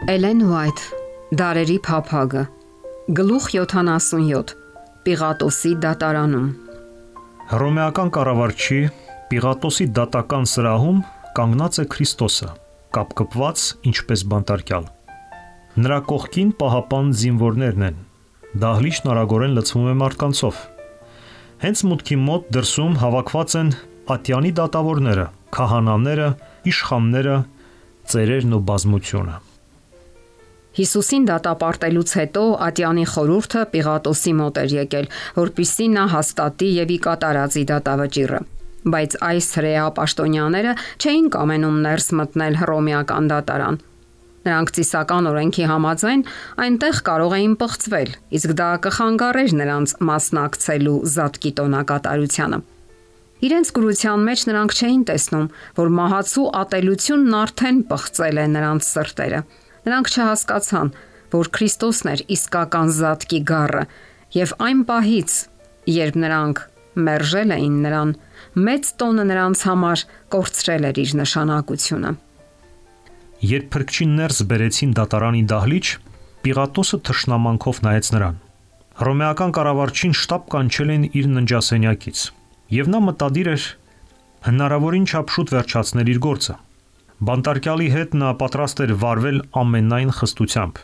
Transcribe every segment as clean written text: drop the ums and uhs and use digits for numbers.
Էլեն Ուայթ, Դարերի փափագը, գլուխ 77, Պիղատոսի դատարանում։ Հռոմեական կառավարչի Պիղատոսի դատական սրահում կանգնած է Քրիստոսը, կապկպված ինչպես բանտարկյալ։ Նրա կողքին պահապան զինվորներն են, դահլիճն արագորեն լցվում է մարդկանցով։ Հենց մուտքի մոտ դրսում հավաքված են ատյանի դատավորները, քահանաները, իշխանները, ծերերն ու բազմությունը։ Հիսուսին դատապարտելուց հետո ատյանի խորհուրդը Պիղատոսի մոտ էր եկել, որպեսզի նա հաստատի եւ ի կատարածի դատավճիռը։ Բայց այս հրեա պաշտոնյաները չէին կամենում ներս մտնել հռոմեական դատարան։ Նրանք ծիսական օրենքի համաձայն այնտեղ կարող էին պղծվել, իսկ դա կխանգարեր նրանց մասնակցելու զատկի տոնակատարությանը։ Իրենց կրության մեջ նրանք չէին տեսնում, որ մահացու ատելությունն արդեն պղծել է նրանց սրտերը։ Նրանք չհասկացան, որ Քրիստոսն էր իսկական զատկի գառը, եւ այն պահից, երբ նրանք մերժել էին նրան, մեծ տոնը նրանց համար կորցրել էր իր նշանակությունը։ Երբ փրկչին ներս բերեցին դատարանի դահլիճ, Պիղատոսը թշնամանքով նայեց նրան։ Հռոմեական կառավարչին շտապ կանչել են իր ննջասենյակից, եւ նա մտադիր էր հնարավորին չափ շուտ վերջացնել իր գործը։ Բանտարկյալի հետ նա պատրաստ էր վարվել ամենայն խստությամբ։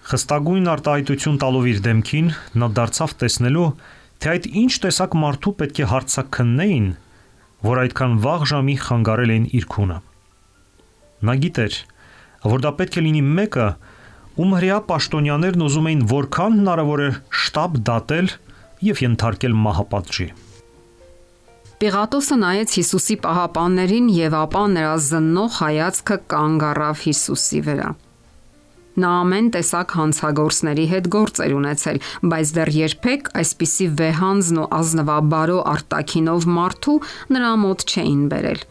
Խստագույն արտահայտություն տալով իր դեմքին, նա դարձավ տեսնելու, թե այդ ինչ տեսակ մարդու պետք է հարցաքննեին, որ այդքան վաղ ժամի խանգարել էին իր քունը։ Նա գիտեր, որ դա պետք է լինի մեկը, ում հրեա պաշտոնյաներն ուզում էին որքան հնարավոր է շտապ դատել եւ ենթարկել մահապատժի։ Պիղատոսը նայեց Հիսուսի պահապաններին եւ ապա նրա զննող հայացքը կանգ առավ Հիսուսի վրա։ Նա ամեն տեսակ հանցագործների հետ գործ էր ունեցել, բայց դեռ երբեք այսպիսի վեհանձն ու ազնվաբարո արտաքինով մարդու նրա մոտ չէին բերել։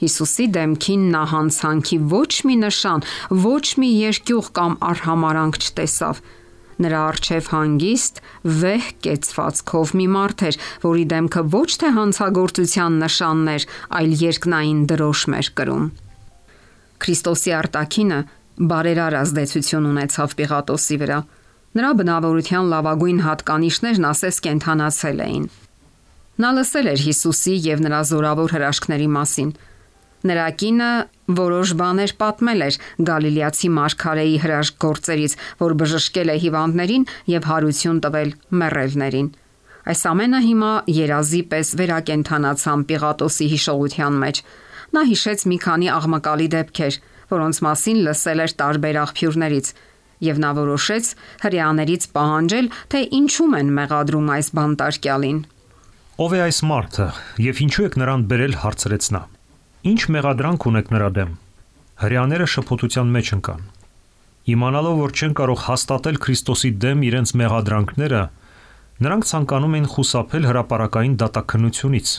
Հիսուսի դեմքին նա հանցանքի ոչ մի նշան, ոչ մի երկյուղ կամ արհամարանք չտեսավ։ Նրա առջև հանգիստ, վեհ կեցվածքով մի մարդ էր, որի դեմքը ոչ թե հանցագործության նշաններ, այլ երկնային դրոշմ էր կրում։ Քրիստոսի արտաքինը բարերար ազդեցություն ունեցավ Պիղատոսի վրա։ Նրա բնավորության լավագույն հատկանիշներն ասես կենդանացել էին։ Նա լսել էր Հիսուսի եւ նրա զորավոր հրաշքների մասին։ Նրա կինը որոշ բաներ պատմել էր Գալիլեացի մարգարեի հրաշք գործերից, որ բժշկել է հիվանդներին եւ հարություն տվել մեռելներին։ Այս ամենը հիմա երազի պես վերակենդանացան Պիղատոսի հիշողության մեջ։ Նա հիշեց մի քանի աղմկալի դեպքեր, որոնց մասին լսել էր տարբեր աղբյուրներից, եւ նա որոշեց հրեաներից պահանջել, թե ինչու են մեղադրում այս բանտարկյալին։ Ով է այս մարդը եւ ինչու եք նրան բերել, հարցրեց նա։ Ինչ մեղադրանք ունեք նրա դեմ։ Հրեաները շփոթության մեջ ընկան։ Իմանալով, որ չեն կարող հաստատել Քրիստոսի դեմ իրենց մեղադրանքները, նրանք ցանկանում էին խուսափել հրապարակային դատաքննությունից։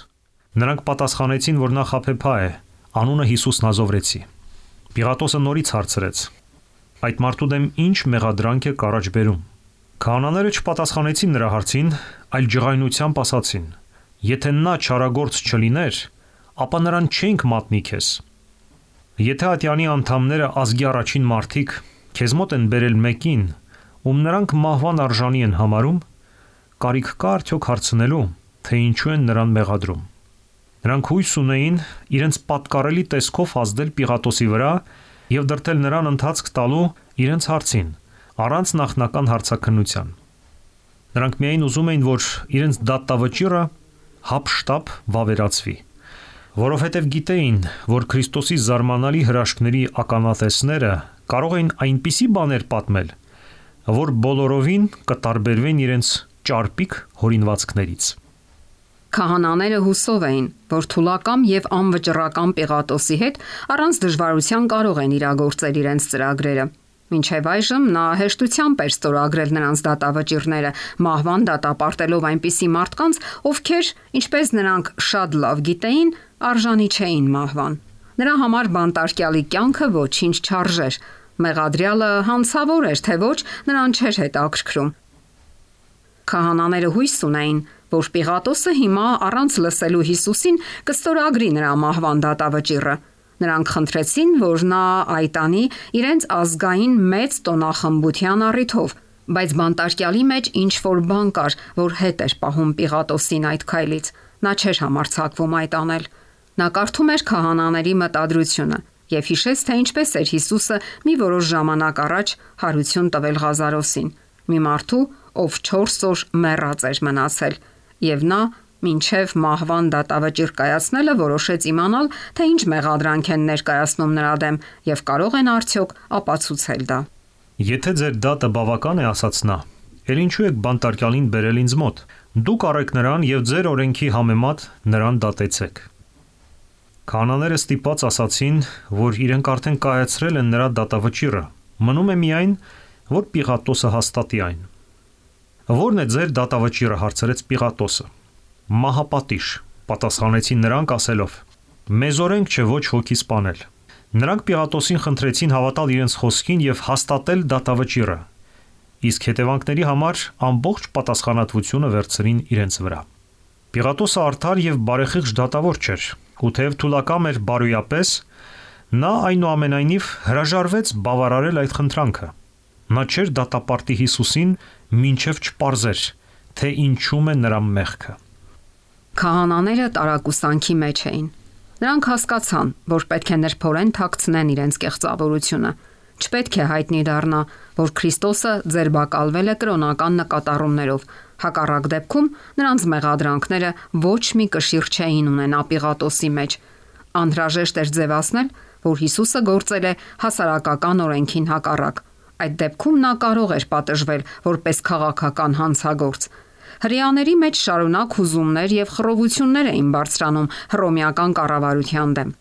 Նրանք պատասխանեցին, որ նա խաբեբա է, անունը Հիսուս Նազովրեցի։ Պիղատոսը նորից հարցրեց. այդ մարդու դեմ ինչ մեղադրանք է առաջ բերում։ Քահանաները չպատասխանեցին նրա հարցին, այլ ջղայնությամբ ասացին. եթե նա չարագործ չլիներ, ապա նրան չենք մատնի քեզ։ Եթե ատյանի անդամները ազգի առաջին մարդիկ քեզ մոտ են բերել մեկին, ում նրանք մահվան արժանի են համարում, կարիք կա արդյոք հարցնելու, թե ինչու են նրան մեղադրում։ Նրանք հույս ունեին իրենց պատկառելի տեսքով ազդել Պիղատոսի վրա եւ դրդել նրան ընթացք տալու իրենց հարցին, առանց նախնական հարցաքննության։ Նրանք միայն ուզում էին, որ իրենց դատավճիռը հապշտապ վավերացվի, որովհետև գիտեին, որ Քրիստոսի զարմանալի հրաշքների ականատեսները կարող էին այնպիսի բաներ պատմել, որ բոլորովին կտարբերվեն իրենց ճարպիկ հորինվածքներից։ Քահանաները հուսով էին, որ թուլակամ եւ անվճռական Պիղատոսի հետ առանց դժվարության կարող են իրագործել իրենց ծրագրերը։ Մինչև այժմ նա հեշտությամբ էր ստորագրել նրանց դատավճիռները, մահվան դատապարտելով այնպիսի մարդկանց, ովքեր, ինչպես նրանք շատ լավ գիտեին, արժանի չէին մահվան։ Նրա համար բանտարկյալի կյանքը ոչինչ չարժեր։ Մեղադրյալը հանցավոր էր, թե ոչ, նրան չէր հետաքրքրում։ Քահանաները հույս ունեին, որ Պիղատոսը հիմա առանց լսելու Հիսուսին կստորագրի նրա մահվան դատավճիռը։ Նրանք խնդրեցին, որ նա այտանի իրենց ազգային մեծ տոնախմբության առիթով, բայց բանտարկյալի մեջ ինչ որ բան կար, որ հետ էր պահում Պիղատոսին այդ քայլից։ Նա չէր համարձակվում այդ անել։ Նա կարդում էր քահանաների մտադրությունը եւ հիշեց, թե ինչպես էր Հիսուսը մի որոշ ժամանակ առաջ հարություն տվել Ղազարոսին, մի մարդու, ով 4 օր մեռած էր մնացել, եւ նա մինչև մահվան դատավճիռ կայացնելը որոշեց իմանալ, թե ինչ մեղադրանք են ներկայացնում նրա դեմ եւ կարող են արդյոք ապացուցել դա։ Եթե ձեր դատը բավական է, ասաց նա, ել ինչու եք բանտարկյալին բերել ինձ մոտ։ Դուք առեք նրան եւ ձեր օրենքի համեմատ նրան դատեցեք։ Քահանաները ստիպված ասացին, որ իրենք արդեն կայացրել են նրա դատավճիռը։ Մնում է միայն, որ Պիղատոսը հաստատի այն։ Որն է ձեր դատավճիռը, հարցրեց Պիղատոսը։ Մահապատիժ, պատասխանեցին նրանք ասելով. Մեզ օրենք չէ ոչ հոգի սպանել։ Նրանք Պիղատոսին խնդրեցին հավատալ իրենց խոսքին եւ հաստատել դատավճիռը, իսկ հետևանքների համար ամբողջ պատասխանատվությունը վերցրին իրենց վրա։ Պիղատոսը արդար եւ բարեխիղճ դատավոր չէր, ու թեև թուլակամ էր բարոյապես, նա այնուամենայնիվ հրաժարվեց բավարարել այդ խնդրանքը։ Նա չէր դատապարտի Հիսուսին, մինչև չպարզեր, թե ինչում է նրա մեղքը։ Քահանաները տարակուսանքի մեջ էին։ Նրանք հասկացան, որ պետք է նրբորեն թաքցնեն իրենց կեղծավորությունը։ Չպետք է հայտնի դառնա, որ Քրիստոսը ձերբակալվել է կրոնական նկատառումներով։ Հակառակ դեպքում նրանց մեղադրանքները ոչ մի կշիռ չէին ունենա Պիղատոսի մեջ։ Անհրաժեշտ էր ձևացնել, որ Հիսուսը գործել է հասարակական օրենքին հակառակ։ Այդ դեպքում նա կարող էր պատժվել որպես քաղաքական հանցագործ։ Հրեաների մեջ շարունակ հուզումներ եւ խռովություններ էին բարձրանում հռոմեական կառավարության դեմ։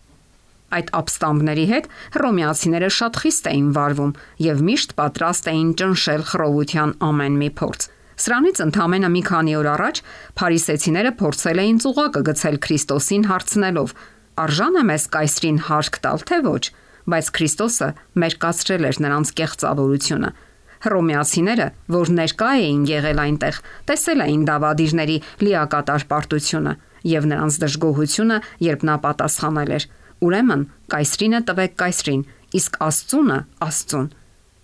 Այդ ապստամբների հետ հռոմեացիները շատ խիստ էին վարվում եւ միշտ պատրաստ էին ճնշել խռովության ամեն մի փորձ։ Սրանից ընդամենը մի քանի օր առաջ փարիսեցիները փորձել էին ծուղակը գցել Քրիստոսին հարցնելով. «Արժան է մեզ կայսրին հարկ տալ, թե ոչ», բայց Քրիստոսը մերկացրել էր նրանց կեղծավորությունը։ Հռոմեացիները, որ ներկա էին եղել այնտեղ, տեսել էին դավադիրների լիակատար պարտությունը եւ նրանց դժգոհությունը, երբ նա պատասխանել էր. «Ուրեմն կայսրինը տվեք կայսրին, իսկ Աստծունը Աստծուն»։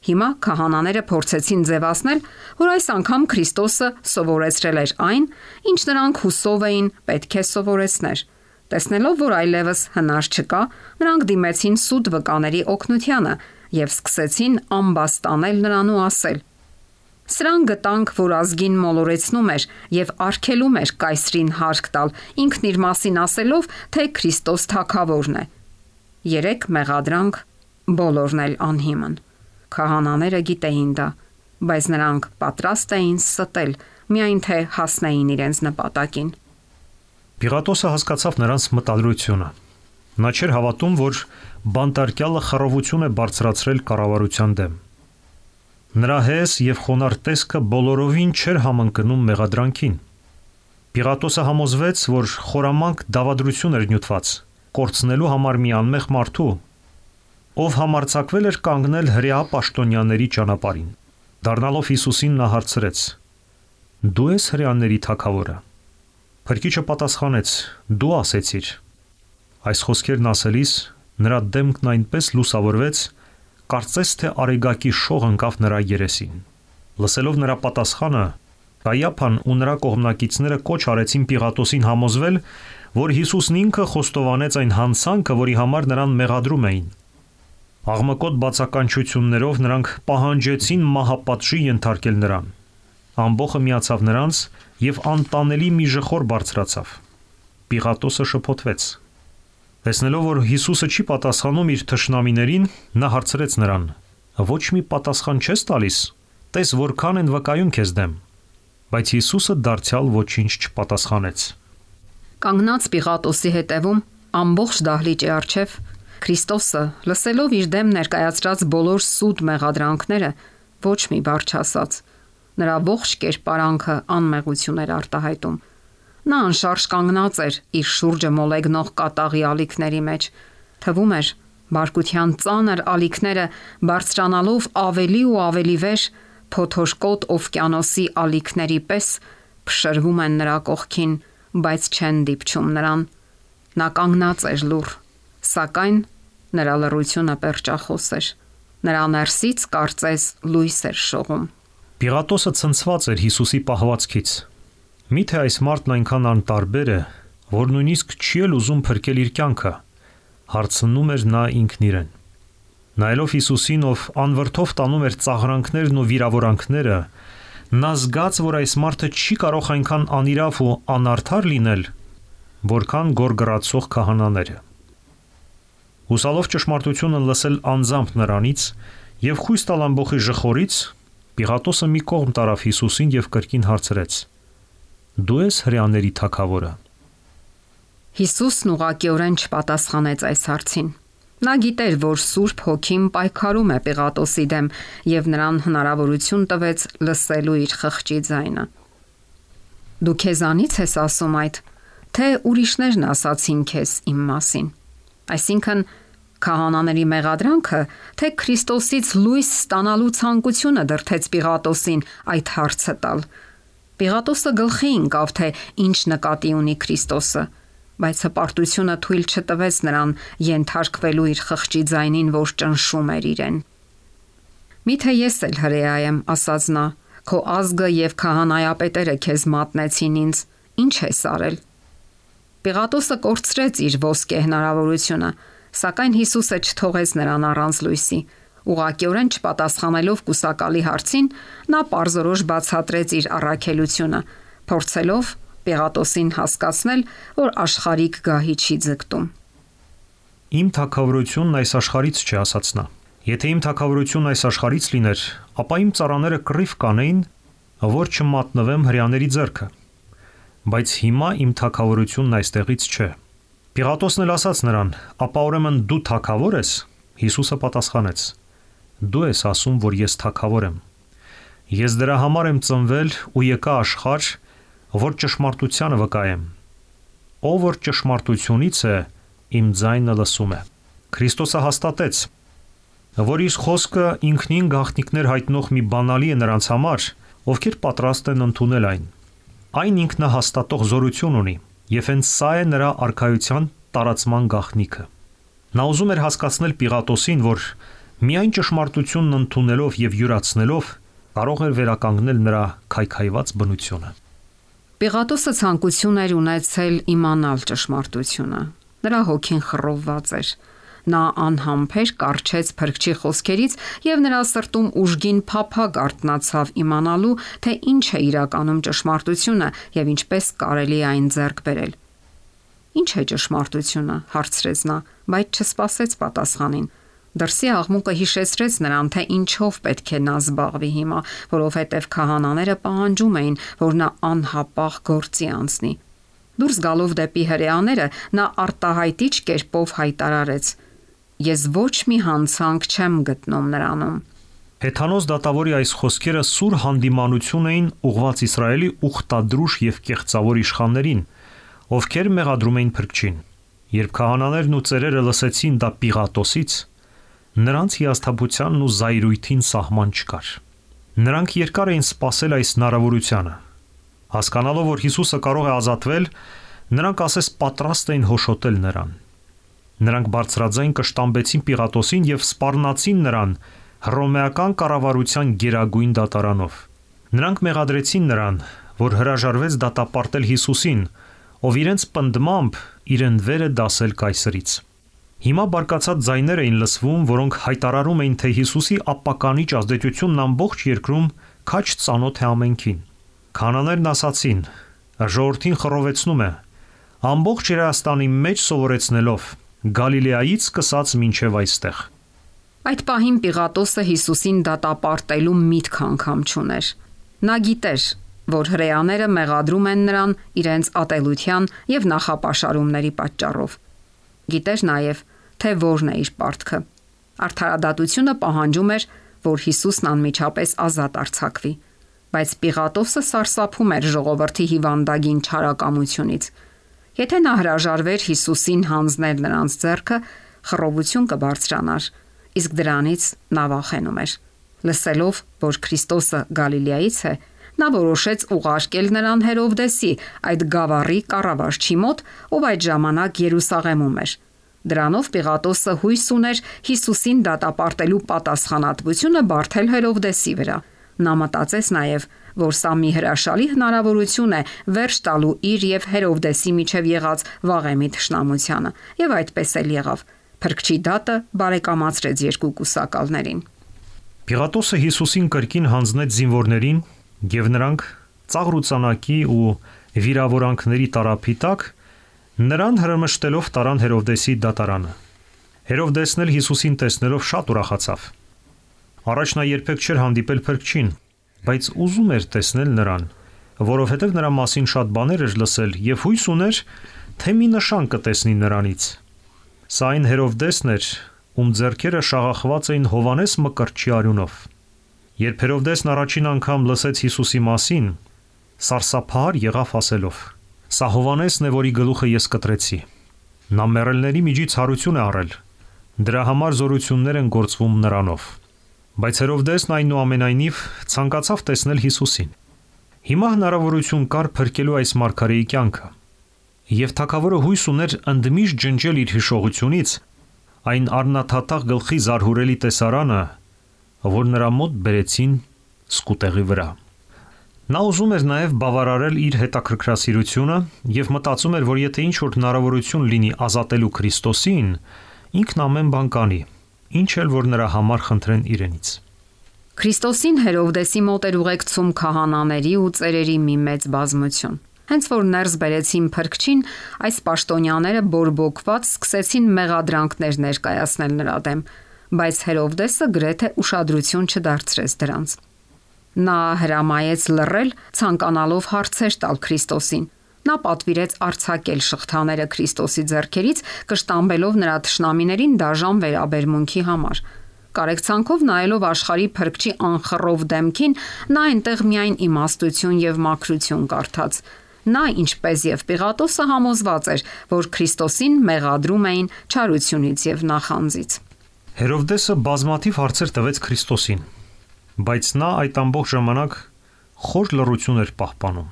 Հիմա քահանաները փորձեցին ձևացնել, որ այս անգամ Քրիստոսը սովորեցրել էր այն, ինչ նրանք հուսով էին պետք է սովորեցներ։ Տեսնելով, որ այլևս հնար չկա, նրանք դիմեցին սուտ վկաների օգնությանը եւ սկսեցին ամբաստանել նրան ու ասել. «Սրան գտանք, որ ազգին մոլորեցնում էր եւ արգելում էր կայսրին հարկ տալ, ինքն իր մասին ասելով, թե Քրիստոս թագավորն է»։ 3 մեղադրանք, բոլորն էլ անհիմն։ Քահանաները գիտեին դա, բայց նրանք պատրաստ էին ստել, միայն թե հասնեին իրենց նպատակին։ Պիղատոսը հասկացավ նրանց մտադրությունը։ Նա չէր հավատում, որ բանտարկյալը խռովություն է բարձրացրել կառավարության դեմ։ Նրա հես եւ խոնարհ տեսքը բոլորովին չէր համընկնում մեղադրանքին։ Պիղատոսը համոզվեց, որ խորամանկ դավադրություն էր նյութված, կորցնելու համար մի անմեղ մարդու, ով համարձակվել էր կանգնել հրեա պաշտոնյաների ճանապարհին։ Դառնալով Հիսուսին նա հարցրեց. «Դու ես հրեաների թագավորը»։ Փրկիչը պատասխանեց. «Դու ասեցիր»։ Այս խոսքերն ասելիս նրա դեմքն այնպես լուսավորվեց, կարծես թե արեգակի շող ընկավ նրա երեսին։ Լսելով նրա պատասխանը, Կայափան ու նրա կողմնակիցները կոչ արեցին Պիղատոսին համոզվել, որ Հիսուսն ինքը խոստովանեց այն հանցանքը, որի համար նրան մեղադրում էին։ Աղմկոտ բացականչություններով նրանք պահանջեցին մահապատժի ենթարկել նրան։ Ամբոխը միացավ նրանց եւ անտանելի մի ժխոր բարձրացավ։ Պիղատոսը շփոթվեց։ Տեսնելով, որ Հիսուսը չի պատասխանում իր թշնամիներին, նա հարցրեց նրան. «Ոչ մի պատասխան չես տալիս, տես որքան են վկայում քեզ դեմ»։ Բայց Հիսուսը դարձյալ ոչինչ չպատասխանեց։ Կանգնած Պիղատոսի հետևում ամբողջ դահլիճի առջև Քրիստոսը, լսելով իր դեմ ներկայացրած բոլոր սուտ մեղադրանքները, ոչ մի բառ չասաց։ Նրա ողջ կերպարանքը անմեղություն էր արտահայտում։ Նա անշարժ կանգնած էր իր շուրջը մոլեգնող կատաղի ալիքների մեջ։ Թվում էր, բարկության ծանր ալիքները բարձրանալով ավելի ու ավելի վեր, փոթորկոտ օվկիանոսի ալիքների պես փշրվում են նրա կողքին, բայց չեն դիպչում նրան։ Նա կանգնած էր լուռ, սակայն Նրա լռությունը պերճախոս էր։ Նրա ներսից կարծես լույս էր շողում։ Պիղատոսը ցնցված էր Հիսուսի պահվածքից։ Միթե այս մարդն այնքան անտարբեր է, որ նույնիսկ չի էլ ուզում փրկել իր կյանքը, հարցնում էր նա ինքն իրեն։ Նայելով Հիսուսին, ով անվրդով տանում էր ծաղրանքներն ու վիրավորանքները, նա զգաց, որ այս մարդը չի կարող այնքան անիրավ ու անարդար լինել, որքան գորգռացող քահանաները։ Հուսալով ճշմարտությունը լսել անձամբ նրանից եւ խույս տալ ամբողջի ժխորից, Պիղատոսը մի կողմ տարավ Հիսուսին եւ կրկին հարցրեց. «Դու ես հրեաների թագավորը»։ Հիսուսն ուղղակիորեն չպատասխանեց այս հարցին։ Նա գիտեր, որ Սուրբ Հոգին պայքարում է Պիղատոսի դեմ եւ նրան հնարավորություն տվեց լսելու իր խղճի ձայնը։ Դու քեզանից ես ասում այդ, թե ուրիշներն ասացին քեզ իմ մասին։ Այսինքն քահանաների մեղադրանքը, թե Քրիստոսից լույս ստանալու ցանկությունը դրդեց Պիղատոսին այդ հարցը տալ։ Պիղատոսը գլխի ընկավ, թե ինչ նկատի ունի Քրիստոսը, բայց հպարտությունը թույլ չտվեց նրան ենթարկվելու իր խղճի ձայնին, որ ճնշում էր իրեն։ Միթե ես էլ հրեա եմ, ասաց նա, քո ազգը եւ քահանայապետերը քեզ մատնեցին ինձ, ինչ ես արել։ Պիղատոսը կորցրեց իր ոսկե հնարավորությունը, սակայն Հիսուսը չթողեց նրան առանց լույսի։ Ուղղակիորեն չպատասխանելով կուսակալի հարցին, նա պարզորոշ բացատրեց իր առաքելությունը, փորձելով Պիղատոսին հասկացնել, որ աշխարհիկ գահի չի ձգտում։ Իմ թագավորությունն այս աշխարհից չի, ասաց նա։ Եթե իմ թագավորությունն այս աշխարհից լիներ, ապա իմ ծառաները կռիվ կանեին, որ չմատնվեմ հրեաների ձեռքը։ Բայց հիմա իմ թագավորությունն այստեղից չէ։ Պիղատոսն էլ ասաց նրան. «Ապա ուրեմն դու թագավոր ես»։ Հիսուսը պատասխանեց. «Դու ես ասում, որ ես թագավոր եմ։ Ես դրա համար եմ ծնվել ու եկա աշխարհ, որ ճշմարտությանը վկայեմ։ Ով որ ճշմարտությունից է, իմ ձայնը լսում է»։ Քրիստոսը հաստատեց, որ իր խոսքը ինքնին գաղտնիքներ հայտնող մի բանալի է նրանց համար, ովքեր պատրաստ են ընդունել այն։ Այն ինքնահաստատող զորություն ունի, եւ հենց սա է նրա արքայության տարածման գաղտնիքը։ Նա ուզում էր հասկացնել Պիղատոսին, որ միայն ճշմարտությունն ընդունելով եւ յուրացնելով կարող էր վերականգնել նրա քայքայված բնությունը։ Պիղատոսը ցանկություն էր ունեցել իմանալ ճշմարտությունը։ Նրա հոգին խռովված էր։ Նա անհամբեր կառչեց Փրկչի խոսքերից եւ նրա սրտում ուժգին փափագ արթնացավ իմանալու, թե ինչ է իրականում ճշմարտությունը եւ ինչպես կարելի է այն ձեռք բերել։ Ինչ է ճշմարտությունը, հարցրեց նա, բայց չսպասեց պատասխանին։ Դրսի աղմուկը հիշեցրեց նրան, թե ինչով պետք է նա զբաղվի հիմա, որովհետև քահանաները պահանջում էին, որ նա անհապաղ գործի անցնի։ Դուրս գալով դեպի հրեաները, նա արտահայտիչ կերպով հայտարարեց. «Ես ոչ մի հանցանք չեմ գտնում նրանում»։ Հեթանոս դատավորի այս խոսքերը սուր հանդիմանություն էին ուղղված Իսրայելի ուխտադրուժ եւ կեղծավոր իշխաններին, ովքեր մեղադրում էին Փրկչին։ Երբ քահանաներն ու ծերերը լսեցին դա Պիղատոսից, նրանց հիասթափությանն ու զայրույթին սահման չկար։ Նրանք երկար էին սպասել այս հնարավորությանը։ Հասկանալով, որ Հիսուսը կարող է ազատվել, նրանք ասես պատրաստ էին հոշոտել նրան։ Նրանք բարձրաձայն կշտամբեցին Պիղատոսին եւ սպառնացին նրան հռոմեական կառավարության գերագույն դատարանով։ Նրանք մեղադրեցին նրան, որ հրաժարվեց դատապարտել Հիսուսին, ով իրենց պնդմամբ իրեն վեր է դասել կայսրից։ Հիմա բարկացած ձայներ էին լսվում, որոնք հայտարարում էին, թե Հիսուսի ապականիչ ազդեցությունն ամբողջ երկրում քաջ ծանոթ է ամենքին։ Քահանաներն ասացին. «Ժողովրդին խռովեցնում է, ամբողջ Հրեաստանի մեջ սովորեցնելով, Գալիլեայից սկսած մինչև այստեղ»։ Այդ պահին Պիղատոսը Հիսուսին դատապարտելու միտք անգամ չուներ։ Նա գիտեր, որ հրեաները մեղադրում են նրան իրենց ատելության եւ նախապաշարումների պատճառով։ Գիտեր նաև, թե որն է իր պարտքը։ Արդարադատությունը պահանջում էր, որ Հիսուսն անմիջապես ազատ արձակվի, բայց Պիղատոսը սարսափում էր ժողովրդի հիվանդագին չարակամությունից։ Եթե նա հրաժարվեր Հիսուսին հանձնել նրանց ձեռքը, խռովություն կբարձրանար, իսկ դրանից նա վախենում էր։ Լսելով, որ Քրիստոսը Գալիլեայից է, նա որոշեց ուղարկել նրան Հերովդեսի, այդ գավառի կառավարչի մոտ, ով այդ ժամանակ Երուսաղեմում էր։ Դրանով Պիղատոսը հույս ուներ Հիսուսին դատապարտելու պատասխանատվությունը բարթել Հերովդեսի վրա։ Նա մտածեց նաև, որ սա մի հրաշալի հնարավորություն է վերջ տալու իր եւ Հերովդեսի միջև եղած վաղեմի թշնամությանը, եւ այդպես էլ եղավ։ Փրկչի դատը բարեկամացրեց երկու կուսակալներին։ Պիղատոսը Հիսուսին կրկին հանձնեց զինվորներին, եւ նրանք ծաղրուծանակի ու վիրավորանքների տարափի տակ նրան հրմշտելով տարան Հերովդեսի դատարանը։ Հերովդեսն էլ Հիսուսին տեսնելով շատ ուրախացավ։ Առաջ նա երբեք չէր հանդիպել փրկչին, բայց ուզում էր տեսնել նրան, որովհետև նրա մասին շատ բաներ էր լսել եւ հույս ուներ, թե մի նշան կտեսնի նրանից։ Սա այն Հերովդեսն էր, ում ձեռքերը շաղախված էին Հովանես Մկրտչի արյունով։ Երբ Հերովդեսն առաջին անգամ լսեց Հիսուսի մասին, սարսափահար եղավ ասելով. «Սա Հովանեսն է, որի գլուխը ես կտրեցի»։ Նա մեռելների միջից հարություն է առել։ Դրա համար զորություններ են գործվում նրանով։ Բայց Հերովդեսն այնուամենայնիվ ցանկացավ տեսնել Հիսուսին։ Հիմա հնարավորություն կար փրկելու այս մարգարեի կյանքը։ Եվ թագավորը հույս ուներ ընդմիշտ ջնջել իր հիշողությունից այն առնաթաթախ գլխի զարհուրելի տեսարանը, որ նրա մոտ բերեցին սկուտեղի վրա։ Նա ուզում էր նաև բավարարել իր հետաքրքրասիրությունը եւ մտածում էր, որ եթե ինչ-որ հնարավորություն լինի ազատելու Քրիստոսին, ինքն ամեն բան կանի, ինչ էլ որ նրա համար խնդրեն իրենից։ Քրիստոսին Հերովդեսի մոտ էր ուղեկցում քահանաների ու ծերերի մի մեծ բազմություն։ Հենց որ ներս բերեցին փրկչին, այս պաշտոնյաները բորբոքված սկսեցին մեղադրանքներ ներկայացնել նրա դեմ, բայց Հերովդեսը գրեթե ուշադրություն չդարձրեց դրանց։ Նա հրամայեց լռել, ցանկանալով հարցեր տալ Քրիստոսին։ Նա պատվիրեց արձակել շղթաները Քրիստոսի ձեռքերից, կշտամբելով նրա թշնամիներին դաժան վերաբերմունքի համար։ Կարեկցանքով նայելով աշխարհի փրկչի անխռով դեմքին, նա այնտեղ միայն իմաստություն եւ մաքրություն կարդաց։ Նա, ինչպես եւ Պիղատոսը, համոզված էր, որ Քրիստոսին մեղադրում էին չարությունից եւ նախանձից։ Հերովդեսը բազմաթիվ հարցեր տվեց Քրիստոսին, բայց նա այդ ամբողջ ժամանակ խոր լռություն էր պահպանում։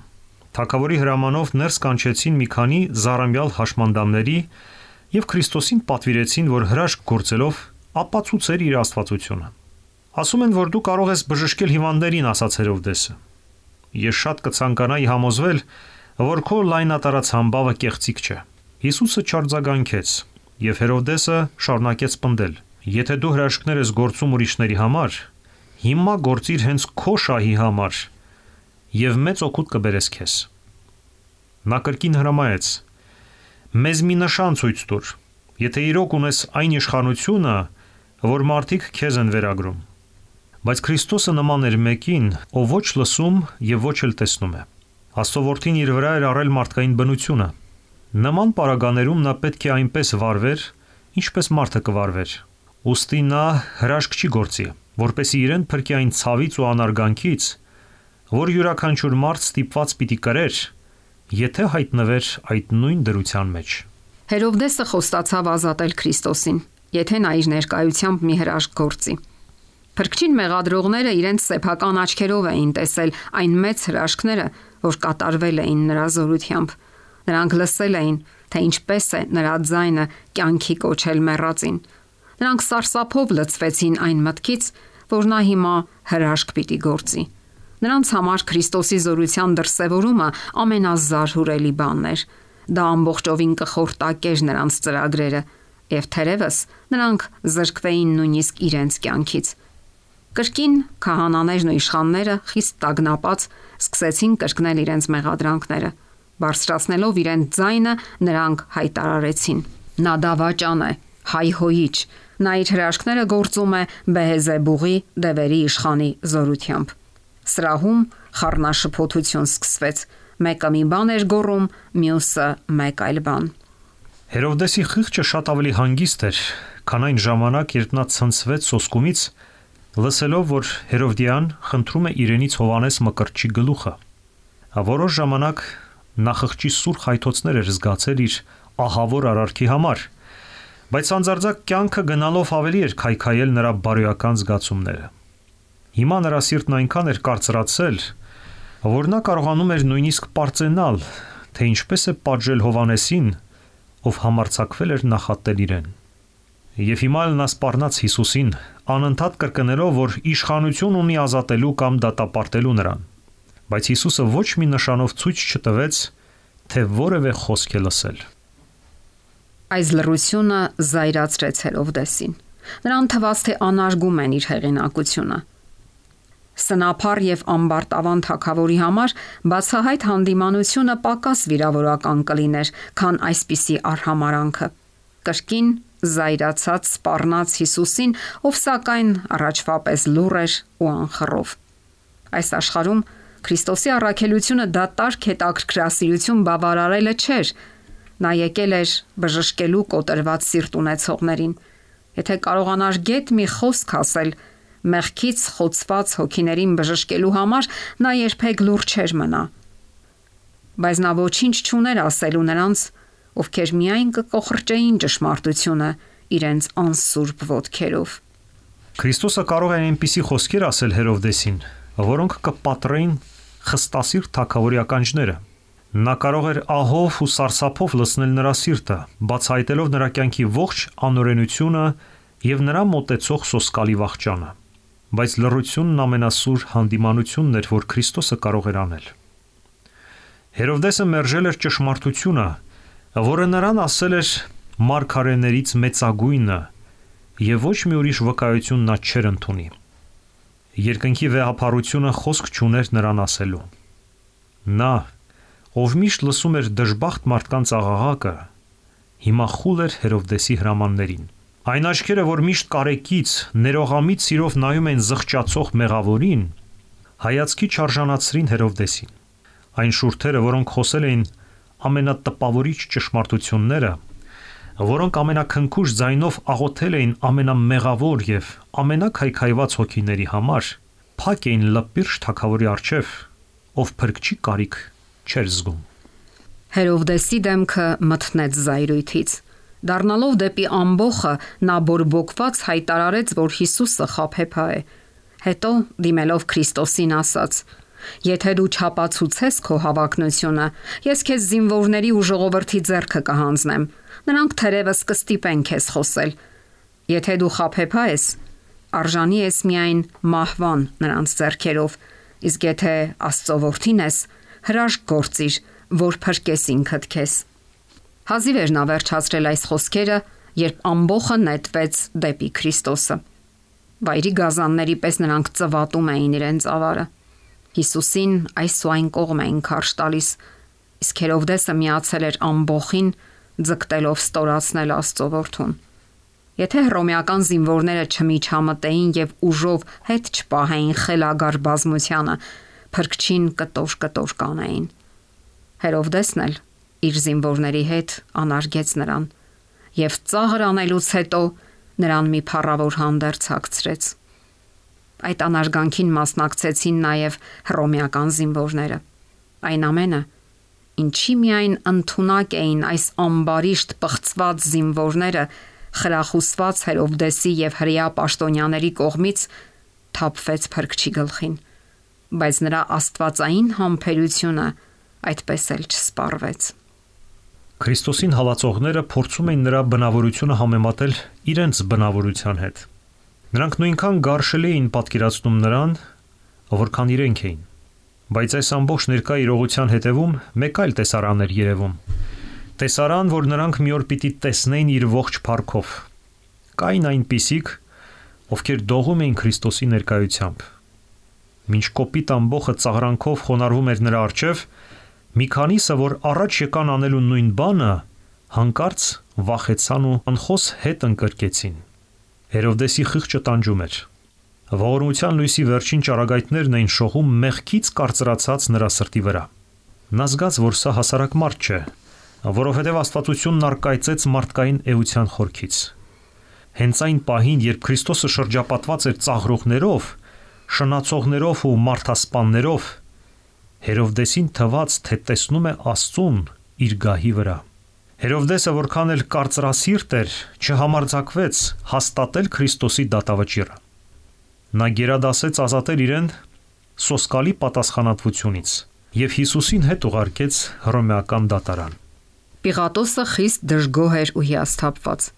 Թագավորի հրամանով ներս կանչեցին մի քանի զառամյալ հաշմանդամների եւ Քրիստոսին պատվիրեցին, որ հրաշք գործելով ապացուցեր իր աստվածությունը։ Ասում են, որ դու կարող ես բժշկել հիվանդներին, ասաց Հերովդեսը։ Ես շատ կցանկանայի համոզվել, որ քո լայնատարած համբավը կեղծիք չէ։ Հիսուսը չարձագանքեց, եւ Հերովդեսը շարունակեց պնդել. Եթե դու հրաշքներ ես գործում ուրիշների համար, հիմա գործիր հենց քո շահի համար եւ մեծ օգուտ կբերես քեզ։ Նա կրկին հրամայեց. մեզ մի նշան ցույց տուր, եթե իրոք ունես այն իշխանությունը, որ մարդիկ քեզ են վերագրում։ Բայց Քրիստոսը նման էր մեկին, ով ոչ լսում եւ ոչ էլ տեսնում է։ Աստծո որդին իր վրա էր առել մարդկային բնությունը։ Նման պարագաներում նա պետք է այնպես վարվեր, ինչպես մարդը կվարվեր։ Ուստի նա հրաշք չի գործի, որպեսզի իրեն փրկի այն ցավից ու անարգանքից, որ յուրաքանչյուր մարդ ստիպված պիտի կրեր, եթե հայտնվեր այդ նույն դրության մեջ։ Հերովդեսը խոստացավ ազատել Քրիստոսին, եթե նա իր ներկայությամբ մի հրաշք գործի։ Փրկչին մեղադրողները իրենց սեփական աչքերով էին տեսել այն մեծ հրաշքները, որ կատարվել էին նրա զորությամբ։ Նրանք լսել էին, թե ինչպես է նրա ձայնը կյանքի կոչել մեռածին։ Նրանք սարսափով լցվեցին այն մտքից, որ նա հիմա հրաշք պիտի գործի։ Նրանց համար Քրիստոսի զորության դրսևորումը ամենազարհուրելի բանն էր։ Դա ամբողջովին կխորտակեր նրանց ծրագրերը, եւ թերևս նրանք զրկվեին նույնիսկ իրենց կյանքից։ Կրկին քահանաներն ու իշխանները խիստ տագնապած սկսեցին կրկնել իրենց մեղադրանքները։ Բարձրացնելով իրենց ձայնը, նրանք հայտարարեցին. Նա դավաճան է, հայհոյիչ։ Նա իր հրաշքները գործում է Բեհեզեբուղի դևերի իշխանի զորությամբ։ Սրահում խառնաշփոթություն սկսվեց։ Մեկը մի բան էր գոռում, մյուսը մեկ այլ բան։ Հերովդեսի խիղճը շատ ավելի հանգիստ էր, քան այն ժամանակ, երբ նա ցնցվեց սոսկումից, լսելով, որ Հերովդիան խնդրում է իրենից Հովանես Մկրտչի գլուխը։ Որոշ ժամանակ նա խղճի սուր խայթոցներ էր զգացել իր ահավոր արարքի համար, բայց անձարձակ կյանքը գնալով ավելի էր քայքայել նրա բարոյական զգացումները։ Հիմա նրա սիրտն այնքան էր կարծրացել, որ նա կարողանում էր նույնիսկ պարծենալ, թե ինչպես է պատժել Հովանեսին, ով համարձակվել էր նախատել իրեն։ Եվ հիմա նա սպառնաց Հիսուսին, անընդհատ կրկնելով, որ իշխանություն ունի ազատելու կամ դատապարտելու նրան։ Բայց Հիսուսը ոչ մի նշանով ցույց չտվեց, թե որևէ խոսք է լսել։ Այս լռությունը զայրացրեց Հերովդեսին։ Նրան թվաց, թե անարգում են իր հեղինակությունը։ Սնափառ եւ ամբարտավան թագավորի համար բացահայտ հանդիմանությունը պակաս վիրավորական կլիներ, քան այսպիսի արհամարանքը։ Կրկին զայրացած սպառնաց Հիսուսին, ով սակայն առաջվա պես լուռ էր ու անխռով։ Այս աշխարհում Քրիստոսի առաքելությունը դատարկ հետաքրքրասիրություն բավարարելը չէր։ Նա եկել էր բժշկելու կոտրված սիրտ ունեցողներին։ Եթե կարողանար գեթ մի խոսք ասել մեղքից խոցված հոգիներին բժշկելու համար, նա երբեք լուռ չէր մնա։ Բայց նա ոչինչ չուներ ասելու նրանց, ովքեր միայն կկոխրճեին ճշմարտությունը իրենց անսուրբ ոտքերով։ Քրիստոսը կարող է այնպիսի խոսքեր ասել Հերովդեսին, որոնք կպատրեին խստասիրտ թագավորի ականջները։ Նա կարող էր ահով ու սարսափով լցնել նրա սիրտը, բացահայտելով նրա կյանքի ողջ անօրենությունը եւ նրա մոտեցող սոսկալի վախճանը։ Բայց լռությունն ամենասուր հանդիմանությունն էր, որ Քրիստոսը կարող էր անել։ Հերովդեսը մերժել էր ճշմարտությունը, որը նրան ասել էր մարգարեներից մեծագույնը, եւ ոչ մի ուրիշ վկայություն նա չէր ընդունի։ Երկնքի վեհապարությունը խոսք չուներ նրան ասելու։ Նա, ով միշտ լսում էր դժբախտ մարդկանց աղաղակը, հիմա խուլ էր Հերովդեսի հրամաններին։ Այն աչքերը, որ միշտ կարեկից, ներողամիտ սիրով նայում են զղջացող մեղավորին, հայացքի չարժանացրին Հերովդեսին։ Այն շուրթերը, որոնք խոսել էին ամենատպավորիչ ճշմարտությունները, որոնք ամենաքնքուշ ձայնով աղոթել էին ամենամեղավոր եւ ամենաքայքայված հոգիների համար, փակ էին լպիրշ թագավորի առջև, ով փրկչի կարիք չէր զգում։ Հերովդեսի դեմքը մթնեց զայրույթից։ Դառնալով դեպի ամբոխը, նա բորբոքված հայտարարեց, որ Հիսուսը խաբեբա է։ Հետո, դիմելով Քրիստոսին, ասաց. «Եթե դու չապացուցես քո հավակնությունը, ես քեզ զինվորների ու ժողովրդի ձեռքը կհանձնեմ։ Նրանք թերևս կստիպեն քեզ խոսել։ Եթե դու խաբեբա ես, արժանի ես միայն մահվան նրանց ձեռքերով, իսկ եթե Աստծո որդին ես, հրաշք գործիր, որ փրկես ինքդ քեզ»։ Հազիվ էր նա վերջացրել այս խոսքերը, երբ ամբոխը նետվեց դեպի Քրիստոսը։ Վայրի գազանների պես նրանք ծվատում էին իրենց ավարը։ Հիսուսին այս ու այն կողմ էին քարշ տալիս, իսկ Հերովդեսը միացել էր ամբոխին, ձգտելով ստորացնել Աստծո որդուն։ Եթե հռոմեական զինվորները չմիջամտեին եւ ուժով հետ չպահեին խելագար բազմությանը, փրկչին կտոր կանեին։ Հերովդեսն էլ իր զինվորների հետ անարգեց նրան եւ ծաղր անելուց հետո նրան մի փառավոր հանդերձ հագցրեց։ Այդ անարգանքին մասնակցեցին նաեւ հռոմեական զինվորները։ Այն ամենը, ինչի միայն ընդունակ էին այս ամբարիշտ պղծված զինվորները, խրախուսված Հերովդեսի եւ հրեա պաշտոնյաների կողմից, թափվեց փրկչի գլխին, բայց նրա աստվածային համբերությունը այդպես էլ չսպառվեց։ Քրիստոսին հալածողները փորձում էին նրա բնավորությունը համեմատել իրենց բնավորության հետ։ Նրանք նույնքան գարշելի էին պատկերացնում նրան, որքան իրենք էին։ Բայց այս ամբողջ ներկա իրողության հետևում մեկ այլ տեսարան էր երևում։ Տեսարան, որ նրանք մի օր պիտի տեսնեին իր ողջ փառքով։ Կային այնպիսիք, ովքեր դողում էին Քրիստոսի ներկայությամբ։ Մինչ կոպիտ ամբոխը ծաղրանքով խոնարհվում էր նրա առջև, մի քանիսը, որ առաջ եկան անելու նույն բանը, հանկարծ վախեցան ու անխոս հետ ընկրկեցին։ Հերովդեսի խիղճը տանջում էր։ Ողորմության լույսի վերջին ճառագայթներն էին շողում մեղքից կարծրացած նրա սրտի վրա։ Նա զգաց, որ սա հասարակ մարդ չէ, որովհետև Աստվածությունն առկայծեց մարդկային էության խորքից։ Հենց այն պահին, երբ Քրիստոսը շրջապատված էր ծաղրողներով, շնացողներով ու մարդասպաններով, Հերովդեսին թվաց, թե տեսնում է Աստծուն իր գահի վրա։ Հերովդեսը, որքան էլ կարծրասիրտ էր, չհամարձակվեց հաստատել Քրիստոսի դատավճիռը։ Նա գերադասեց ազատել իրեն սոսկալի պատասխանատվությունից եւ Հիսուսին հետ ուղարկեց հռոմեական դատարան։ Պիղատոսը խիստ դժգոհ էր ու հիասթափված։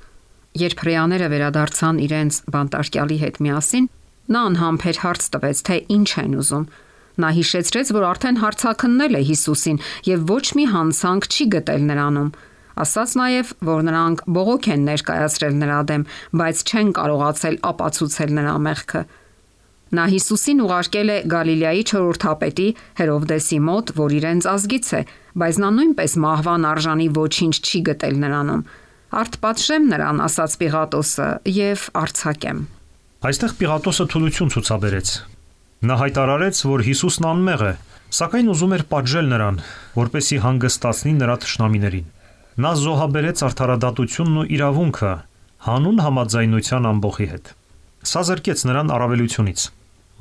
Երբ հրեաները վերադարձան իրենց բանտարկյալի հետ միասին, նա անհամբեր հարց տվեց, թե ինչ են ուզում։ Նա հիշեցրեց, որ արդեն հարցաքննել է Հիսուսին եւ ոչ մի հանցանք չի գտել նրանում։ Ասաց նաև, որ նրանք բողոք են ներկայացրել նրա դեմ, բայց չեն կարողացել ապացուցել նրա մեղքը։ Նա Հիսուսին ուղարկել է Գալիլեայի չորրորդապետի Հերովդեսի մոտ, որ իրենց ազգից է, բայց նա նույնպես մահվան արժանի ոչինչ չի գտել նրանում։ Արթպատժեմ նրան, ասաց Պիղատոսը, եւ արձակեմ։ Այստեղ Պիղատոսը թուլություն ցուցաբերեց։ Նա հայտարարեց, որ Հիսուսն անմեղ է, սակայն ուզում էր պատժել նրան, որպեսզի հանգստացնի նրա թշնամիներին։ Նա զոհաբերեց արդարադատությունն ու իրավունքը հանուն համաձայնության ամբոխի հետ։ Սա զրկեց նրան առավելությունից։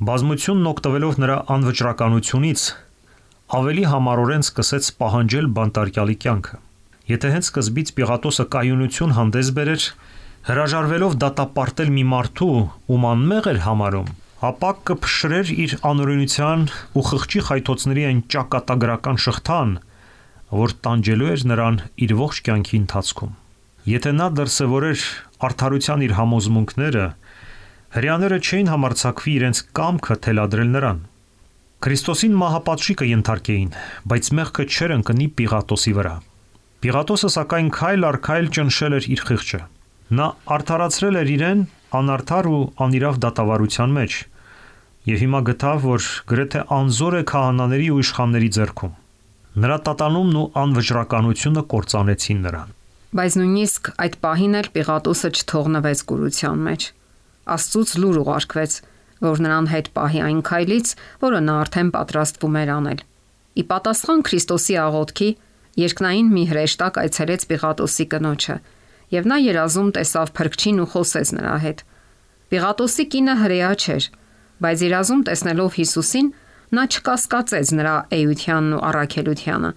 Բազմությունն օգտվելով նրա անվճռականությունից ավելի համառորեն սկսեց պահանջել բանտարկյալի կյանքը։ Եթե հենց սկզբից Պիղատոսը կայունություն հանդես բերեր, հրաժարվելով դատապարտել մի մարդու, ում անմեղ էր համարում, ապա կփշրեր իր անօրենության ու խղճի խայթոցների այն ճակատագրական շղթան, որ տանջելու էր նրան իր ողջ կյանքի ընթացքում։ Եթե նա դրսևորեր արդարության իր համոզմունքները, հրեաները չէին համարձակվի իրենց կամքը թելադրել նրան։ Քրիստոսին մահապատժի կենթարկեին, բայց մեղքը չէր ընկնի Պիղատոսի վրա։ Պիղատոսը սակայն քայլ առ քայլ ճնշել էր իր խիղճը։ Նա արդարացրել էր իրեն անարդար ու անիրավ դատավարության մեջ եւ հիմա գտավ, որ գրեթե անզոր է քահանաների ու իշխանների ձեռքում։ Նրա տատանումն ու անվճռականությունը կործանեցին նրան։ Բայց նույնիսկ այդ պահին էլ Պիղատոսը չթողնվեց կուրության մեջ։ Աստծուց լուր ուղարկվեց, որ նրան հետ պահի այն քայլից, որը նա արդեն պատրաստվում էր անել։ Ի պատասխան Քրիստոսի աղոթքի, երկնային մի հրեշտակ այցելեց Պիղատոսի կնոջը, եւ նա երազում տեսավ Փրկչին ու խոսեց նրա հետ։ Պիղատոսի կինը հրեա չէր, բայց երազում տեսնելով Հիսուսին, նա չկասկածեց նրա էությունն ու առաքելությանը։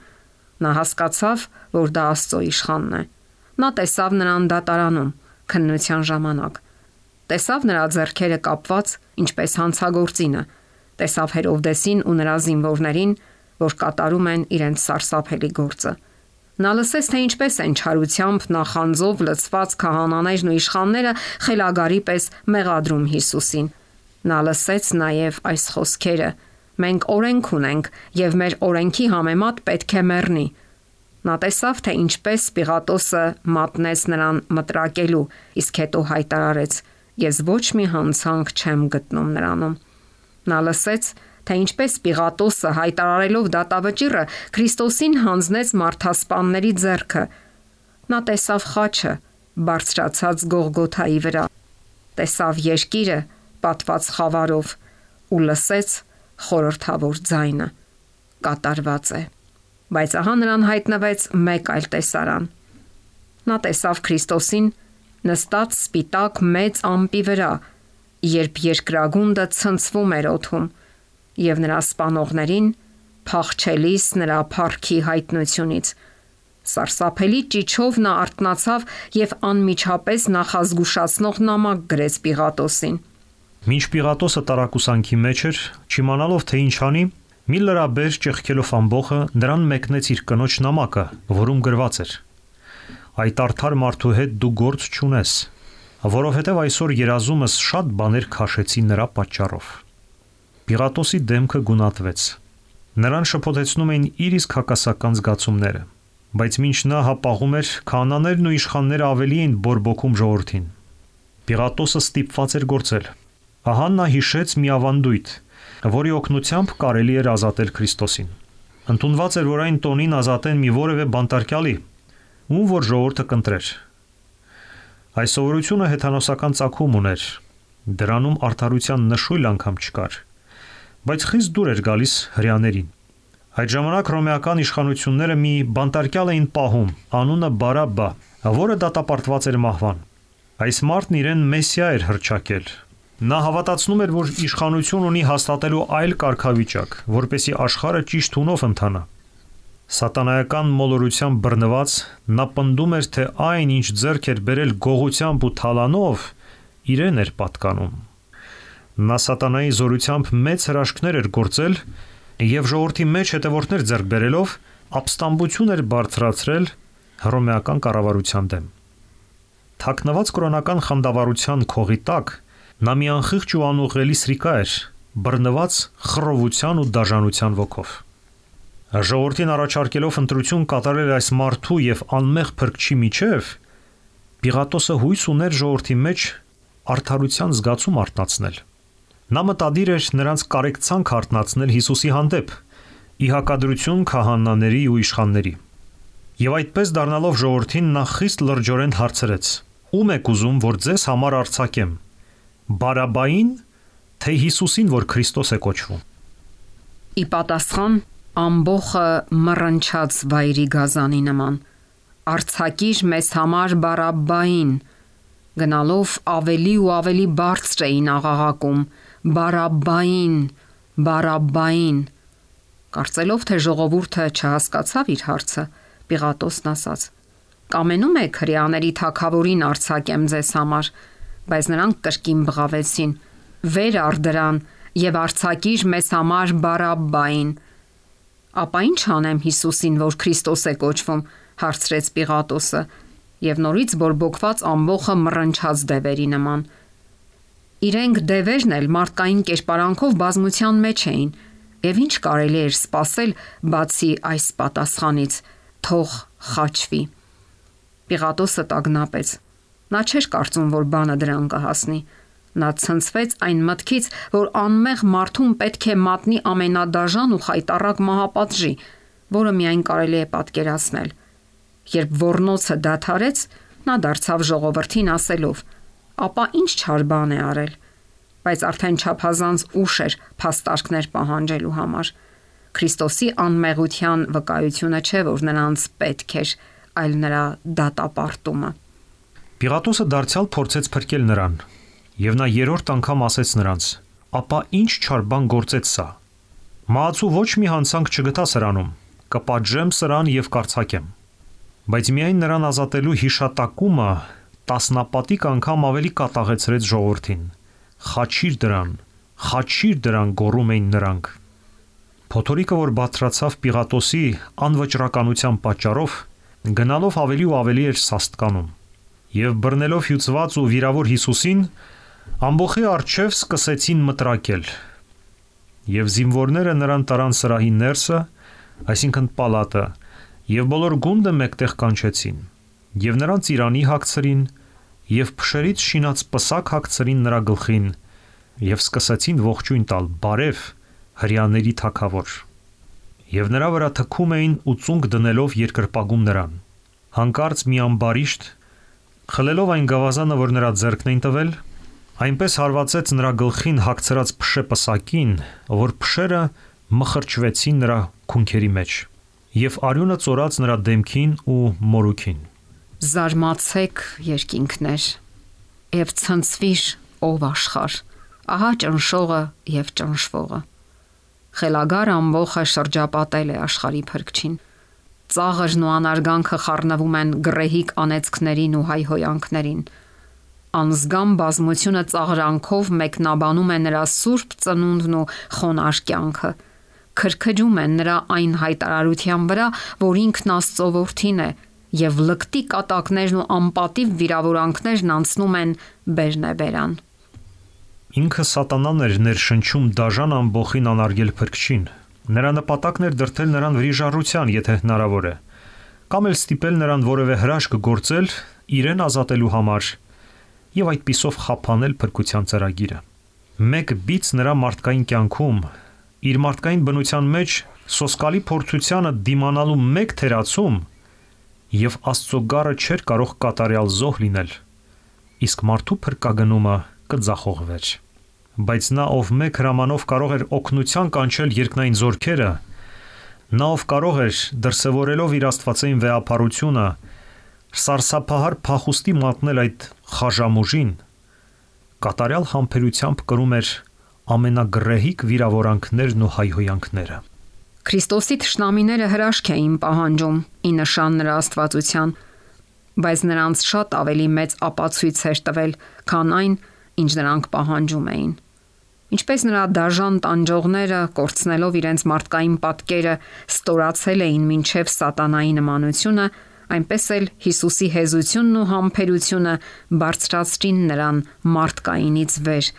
Նա հասկացավ, որ դա Աստծո իշխանն է։ Նա տեսավ նրան դատարանում, քննության ժամանակ։ Տեսավ նրա ձեռքերը կապված, ինչպես հանցագործինը։ Տեսավ Հերովդեսին ու նրա զինվորներին, որ կատարում են իրենց սարսափելի գործը։ Նա լսեց, թե ինչպես են չարությամբ նախանձով լցված քահանաներն ու իշխանները խելագարի պես մեղադրում Հիսուսին։ Նա լսեց նաև այս խոսքերը. «Մենք օրենք ունենք, եւ մեր օրենքի համեմատ պետք է մեռնի»։ Նա տեսավ, թե ինչպես Պիղատոսը մատնեց նրան մտրակելու, իսկ հետո հայտարարեց. «Ես ոչ մի հանցանք չեմ գտնում նրանում»։ Նա լսեց, թե ինչպես Պիղատոսը հայտարարելով դատավճիռը Քրիստոսին հանձնեց մարդասպանների ձեռքը։ Նա տեսավ խաչը բարձրացած Գողգոթայի վրա, տեսավ երկիրը պատված խավարով ու լսեց խորհրդավոր ձայնը. կատարված է։ Բայց ահա նրան հայտնվեց մեկ այլ տեսարան։ Նա տեսավ Քրիստոսին նստած սպիտակ մեծ ամպի վրա, երբ երկրագունդը ցնցվում էր օդում, եւ նրա սպանողներին փախչելիս նրա փառքի հայտնությունից։ Սարսափելի ճիչով նա արթնացավ եւ անմիջապես նախազգուշացնող նամակ գրեց Պիղատոսին։ Մինչ Պիղատոսը տարակուսանքի մեջ էր, չիմանալով թե ինչ անի, մի լրաբեր ճեղքելով ամբոխը նրան մեկնեց իր կնոջ նամակը, որում գրված էր. «Այդ արդար մարդու հետ դու գործ չունես, որովհետև այսօր երազումս շատ բաներ քաշեցի նրա պատճառով»։ Պիղատոսի դեմքը գունատվեց։ Նրան շփոթեցնում էին իր իսկ հակասական զգացումները, բայց մինչ նա հապաղում էր, քահանաներն ու իշխանները ավելի էին բորբոքում ժողովրդին։ Պիղատոսը ստիպված էր գործել։ Ահա նա հիշեց մի ավանդույթ, որի օգնությամբ կարելի էր ազատել Քրիստոսին։ Ընդունված էր, որ այն տոնին ազատեն մի որևէ բանտարկյալի, ում որ ժողովուրդը կընտրեր։ Այս սովորությունը հեթանոսական ծագում ուներ, դրանում արդարության նշույլ անգամ չկար, բայց խիստ դուր էր գալիս հրեաներին։ Այդ ժամանակ հռոմեական իշխանությունները մի բանտարկյալ էին պահում, անունը Բարաբբա, որը դատապարտված էր մահվան։ Այս մարդն իրեն Մեսիա էր հռչակել։ Նա հավատացնում էր, որ իշխանություն ունի հաստատելու այլ կարգավիճակ, որպեսզի աշխարհը ճիշտ հունով ընթանա։ Սատանայական մոլորությամբ բռնված նա պնդում էր, թե այն, ինչ ձեռք էր բերել գողությամբ ու թալանով, իրեն էր պատկանում։ Նա սատանայի զորությամբ մեծ հրաշքներ էր գործել եւ ժողովրդի մեջ հետևորդներ ձեռք բերելով ապստամբություն էր բարձրացրել հռոմեական կառավարության դեմ։ Թաքնված կրոնական խանդավառության քողի տակ նա մի անխիղճ ու անուղղելի սրիկա էր, բռնված խռովության ու դաժանության ոգով։ Ժողովրդին առաջարկելով ընտրություն կատարել այս մարդու եւ անմեղ փրկչի միջև, Պիղատոսը հույս ուներ ժողովրդի մեջ արդարության զգացում արթնացնել։ Նա մտադիր էր նրանց կարեկցանք արթնացնել Հիսուսի հանդեպ, ի հակադրություն քահանաների ու իշխանների։ Եվ այդպես դառնալով ժողովրդին նա խիստ լրջորեն հարցրեց. «Ո՞ւմ եք ուզում, որ ձեզ համար արձակեմ, Բարաբային, թե Հիսուսին, որ Քրիստոս է կոչվում»։ Ի պատասխան ամբողը մռնչաց վայրի գազանի նման. «Արձակիր մեզ համար Բարաբային», գնալով ավելի ու ավելի բարձր էին աղաղակում. «Բարաբային, Բարաբային»։ Կարծելով, թե ժողովուրդը չհասկացավ իր հարցը, Պիղատոսն ասաց. «Կամենում եք հրեաների թագավորին արձակեմ ձեզ համար», բայց նրանք կրկին բղավեցին. «Վեր առ դրան եւ արձակիր մեզ համար Բարաբային»։ «Ապա ինչ անեմ Հիսուսին, որ Քրիստոս է կոչվում», հարցրեց Պիղատոսը, եւ նորից բորբոքված ամբողը մռնչաց դևերի նման։ Իրենք դևերն էլ մարդկային կերպարանքով բազմության մեջ էին, եւ ինչ կարելի էր սպասել բացի այս պատասխանից. «Թող խաչվի»։ Պիղատոսը տագնապեց։ Նա չէր կարծում, որ բանը դրան կհասնի։ Նա ցնցվեց այն մտքից, որ անմեղ մարդուն պետք է մատնի ամենադաժան ու խայտառակ մահապատժի, որը միայն կարելի է պատկերացնել։ Երբ ոռնոցը դադարեց, նա դարձավ ժողովրդին ասելով. «Ապա ինչ չար բան է արել»։ Բայց արդեն չափազանց ուշ էր փաստարկներ պահանջելու համար։ Քրիստոսի անմեղության վկայությունը չէ, որ նրանց պետք էր, այլ նրա դատապարտումը։ Պիղատոսը դարձյալ փորձեց փրկել նրան, եւ նա երրորդ անգամ ասեց նրանց. «Ապա ինչ չար բան գործեց սա։ Մահացու ոչ մի հանցանք չգտա սրանում, կպատժեմ սրան եւ կարծակեմ»։ Բայց միայն նրան ազատելու հիշատակումը տասնապատիկ անգամ ավելի կատաղեցրեց ժողովրդին։ «Խաչիր դրան» գոռում էին նրանք։ Փոթորիկը, որ բարձրացավ Պիղատոսի անվճռականության պատճառով, գնալով ավելի ու ավելի էր սաստկանում, եւ բռնելով հյուծված ու վիրավոր Հիսուսին, ամբողի առջև սկսեցին մտրակել, եւ զինվորները նրան տարան սրահի ներսը, այսինքն պալատը, եւ բոլոր գունդը մեկտեղ կանչեցին, եւ նրան ծիրանի հագցրին, եւ փշերից շինած պսակ հագցրին նրա գլխին, եւ սկսեցին ողջույն տալ. «Բարև, հրեաների թագավոր»։ Եվ նրա վրա թքում էին ու ծունկ դնելով երկրպագում նրան։ Հանկարծ մի ամբարիշտ, խլելով այն գավազանը, որ նրա ձեռքն էին տվել, այնպես հարվածեց նրա գլխին հագցրած փշե պսակին, որ փշերը մխրճվեցին նրա քունքերի մեջ, եւ արյունը ծորաց նրա դեմքին ու մորուքին։ Զարմացեք, երկինքներ, եւ ցնցվիր, ով աշխարհ, ահա ճնշողը եւ ճնշվողը։ Խելագար ամբողը շրջապատել է աշխարհի փրկչին։ Ծաղրն ու անարգանքը խառնվում են գրեհիկ անեծքներին ու հայհոյանքներին։ Անզգամ բազմությունը ծաղրանքով մեկնաբանում է նրա սուրբ ծնունդն ու խոնարհ կյանքը։ Քրքջում են նրա այն հայտարարության վրա, որ ինքն Աստծո որդին է, եւ լկտի կատակներն ու անպատիվ վիրավորանքներն անցնում են բերնեբերան։ Ինքը սատանան էր ներշնչում դաժան ամբողին անարգել փրկչին։ Նրա նպատակն էր դրդել նրան վրիժառության, եթե հնարավոր է, կամ էլ ստիպել նրան որևէ հրաշք գործել իրեն ազատելու համար եւ այդպիսով խափանել փրկության ծրագիրը։ Մեկ բիծ նրա մարդկային կյանքում, իր մարդկային բնության մեջ սոսկալի փորձությանը դիմանալու մեկ թերացում եւ Աստծո գառը չէր կարող կատարյալ զոհ լինել, իսկ մարդու փրկագնումը կձախողվեր։ Բայց նա, ով մեկ հրամանով կարող էր օգնության կանչել երկնային զորքերը, նա, ով կարող էր դրսևորելով իր աստվածային վեհապարությունը, սարսափահար փախուստի մատնել այդ խաժամուժին, կատարյալ համբերությամբ կրում էր ամենագրեհիկ վիրավորանքներն ու հայհոյանքները։ Քրիստոսի թշնամիները հրաշք էին պահանջում ի նշան նրա աստվածության, բայց նրանց շատ ավելի մեծ ապացույց էր տվել, քան այն, ինչ նրանք պահանջում էին։ Ինչպես նրա դաժան տանջողները, կորցնելով իրենց մարդկային պատկերը, ստորացել էին մինչև սատանայի նմանությունը, այնպես էլ Հիսուսի հեզությունն ու համբերությունը բարձրացրին նրան մարդկայինից վեր,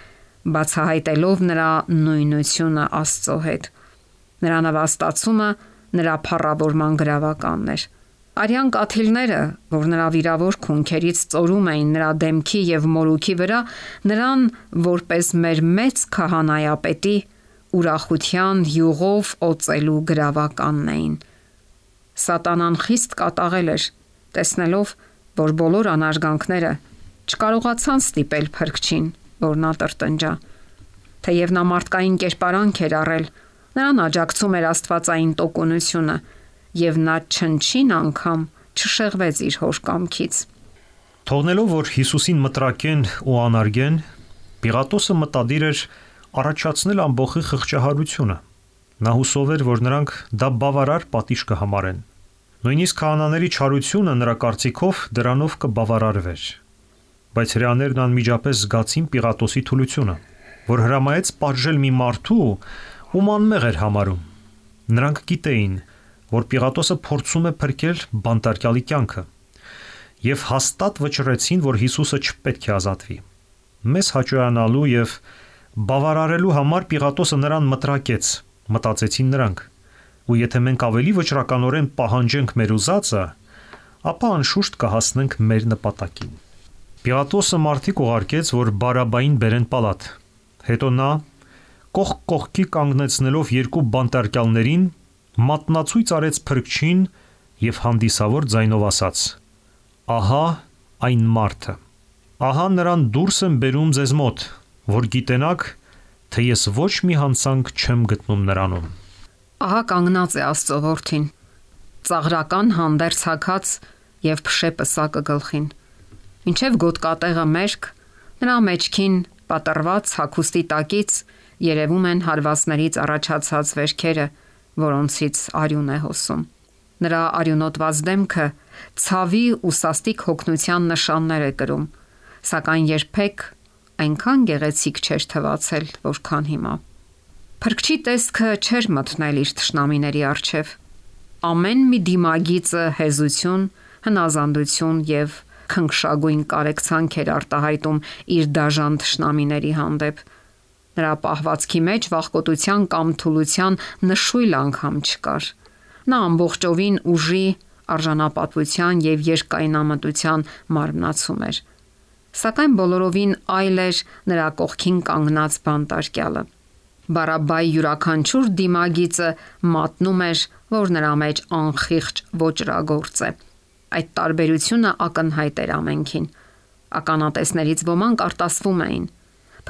բացահայտելով նրա նույնությունը Աստծո հետ։ Նրա նվաստացումը նրա փառավորման գրավականն էր։ Արյան կաթիլները, որ նրա վիրավոր քունքերից ծորում էին նրա դեմքի եւ մորուքի վրա, նրան որպես մեր մեծ քահանայապետի ուրախության յուղով օծելու գրավականն էին։ Սատանան խիստ կատաղել էր, տեսնելով, որ բոլոր անարգանքները չկարողացան ստիպել Փրկչին, որ նա տրտնջա։ Թեև նա մարդկային կերպարանք էր առել, նրան աջակցում էր աստվածային տոկունությունը, եւ նա չնչին անգամ չշեղվեց իր հոր կամքից։ Թողնելով, որ Հիսուսին մտրակեն ու անարգեն, Պիղատոսը մտադիր էր առաջացնել ամբողջի խղճահարությունը։ Նա հուսով էր, որ նրանք դա բավարար պատիժ կհամարեն։ Նույնիսկ քահանաների չարությունը նրա կարծիքով դրանով կբավարարվեր։ Բայց հրեաներն անմիջապես զգացին Պիղատոսի թուլությունը, որ հրամայեց պատժել մի մարդու, ում անմեղ էր համարում։ Նրանք գիտեին, որ Պիղատոսը փորձում է փրկել բանտարկյալի կյանքը, եւ հաստատ վճռեցին, որ Հիսուսը չպետք է ազատվի։ Մեզ հաճոյանալու եւ բավարարելու համար Պիղատոսը նրան մտրակեց, մտածեցին նրանք։ Ու եթե մենք ավելի վճռականորեն պահանջենք մեր ուզածը, ապա անշուշտ կհասնենք մեր նպատակին։ Պիղատոսը մարդիկ ուղարկեց, որ Բարաբային բերեն պալատ։ Հետո նա կողք կողքի կանգնեցնելով երկու բանտարկյալներին մատնացույց արեց Փրկչին եւ հանդիսավոր ձայնով ասաց. «Ահա այն մարդը։ Ահա նրան դուրս եմ բերում ձեզ մոտ, որ գիտենաք, թե ես ոչ մի հանցանք չեմ գտնում նրանում»։ Ահա կանգնած է Աստծո որդին, ծաղրական հանդերձ հագած եւ փշե պսակը գլխին։ Մինչև գոտկատեղը մերկ, նրա մեջքին պատռված հագուստի տակից երևում են հարվածներից առաջացած վերքերը, որոնցից արյուն է հոսում։ Նրա արյունոտված դեմքը ցավի ու սաստիկ հոգնության նշաններ է կրում, սակայն երբեք այնքան գեղեցիկ չէր թվացել, որքան հիմա։ Փրկչի տեսքը չէր մտնել իր թշնամիների առջև։ Ամեն մի դիմագիծը հեզություն, հնազանդություն եւ քնքշագույն կարեկցանք էր արտահայտում իր դաժան թշնամիների հանդեպ։ Նրա պահվածքի մեջ վախկոտության կամ թուլության նշույլ անգամ չկար։ Նա ամբողջովին ուժի, արժանապատվության եւ երկայնամտության մարմնացում էր։ Սակայն բոլորովին այլ էր նրա կողքին կանգնած բանտարկյալը։ Բարաբայի յուրաքանչյուր դիմագիծը մատնում էր, որ նրա մեջ անխիղճ ոճրագործ է։ Այդ տարբերությունը ակնհայտ էր ամենքին։ Ականատեսներից ոմանք արտասվում էին։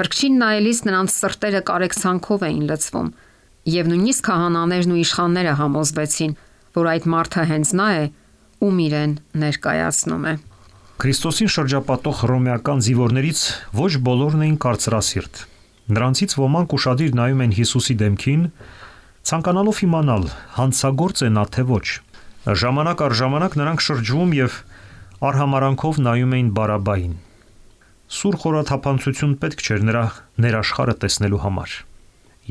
Փրկչին նայելիս նրանց սրտերը կարեկցանքով էին լցվում, եւ նույնիսկ քահանաներն ու իշխանները համոզվեցին, որ այդ մարդը հենց նա է, ում իրեն ներկայացնում է։ Քրիստոսին շրջապատող հռոմեական զինվորներից ոչ բոլորն էին կարծրասիրտ։ Նրանցից ոմանք ուշադիր նայում են Հիսուսի դեմքին, ցանկանալով իմանալ, հանցագործ է նա թե ոչ։ Ժամանակ առ ժամանակ նրանք շրջվում եւ արհամարանքով նայում էին Բարաբային։ Սուր խորաթափանցություն պետք չէր նրա ներաշխարը տեսնելու համար։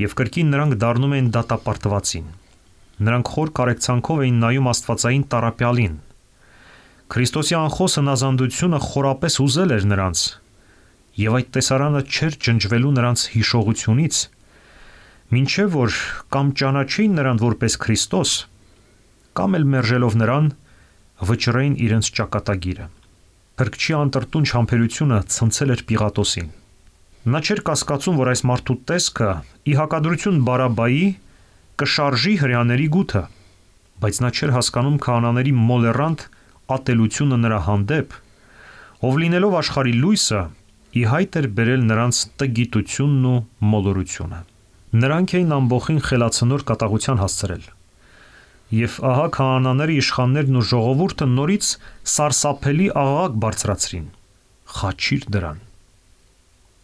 Եվ կրկին նրանք դառնում էին դատապարտվածին։ Նրանք խոր կարեկցանքով էին նայում Աստվածային տառապյալին։ Քրիստոսի անխոս հնազանդությունը խորապես ուզել էր նրանց, եւ այդ տեսարանը չէր ջնջվելու նրանց հիշողությունից, մինչև որ կամ ճանաչեին նրան որպես Քրիստոս, կամ էլ մերժելով նրան վճռեին իրենց ճակատագիրը։ Փրկչի անտրտունջ համբերությունը ցնցել էր Պիղատոսին։ Նա չէր կասկածում, որ այս մարդու տեսքը ի հակադրություն Բարաբայի կշարժի հրեաների գութը, բայց նա չէր հասկանում քահանաների մոլեռանդ ատելությունը նրա հանդեպ, ով լինելով աշխարհի լույսը, ի հայտ էր բերել նրանց տգիտությունն ու մոլորությունը։ Նրանք էին ամբողջին խելացնոր կատաղության հասցրել։ Եվ ահա քահանաների իշխաններն ու ժողովուրդը նորից սարսափելի աղաղակ բարձրացրին. «Խաչիր դրան»։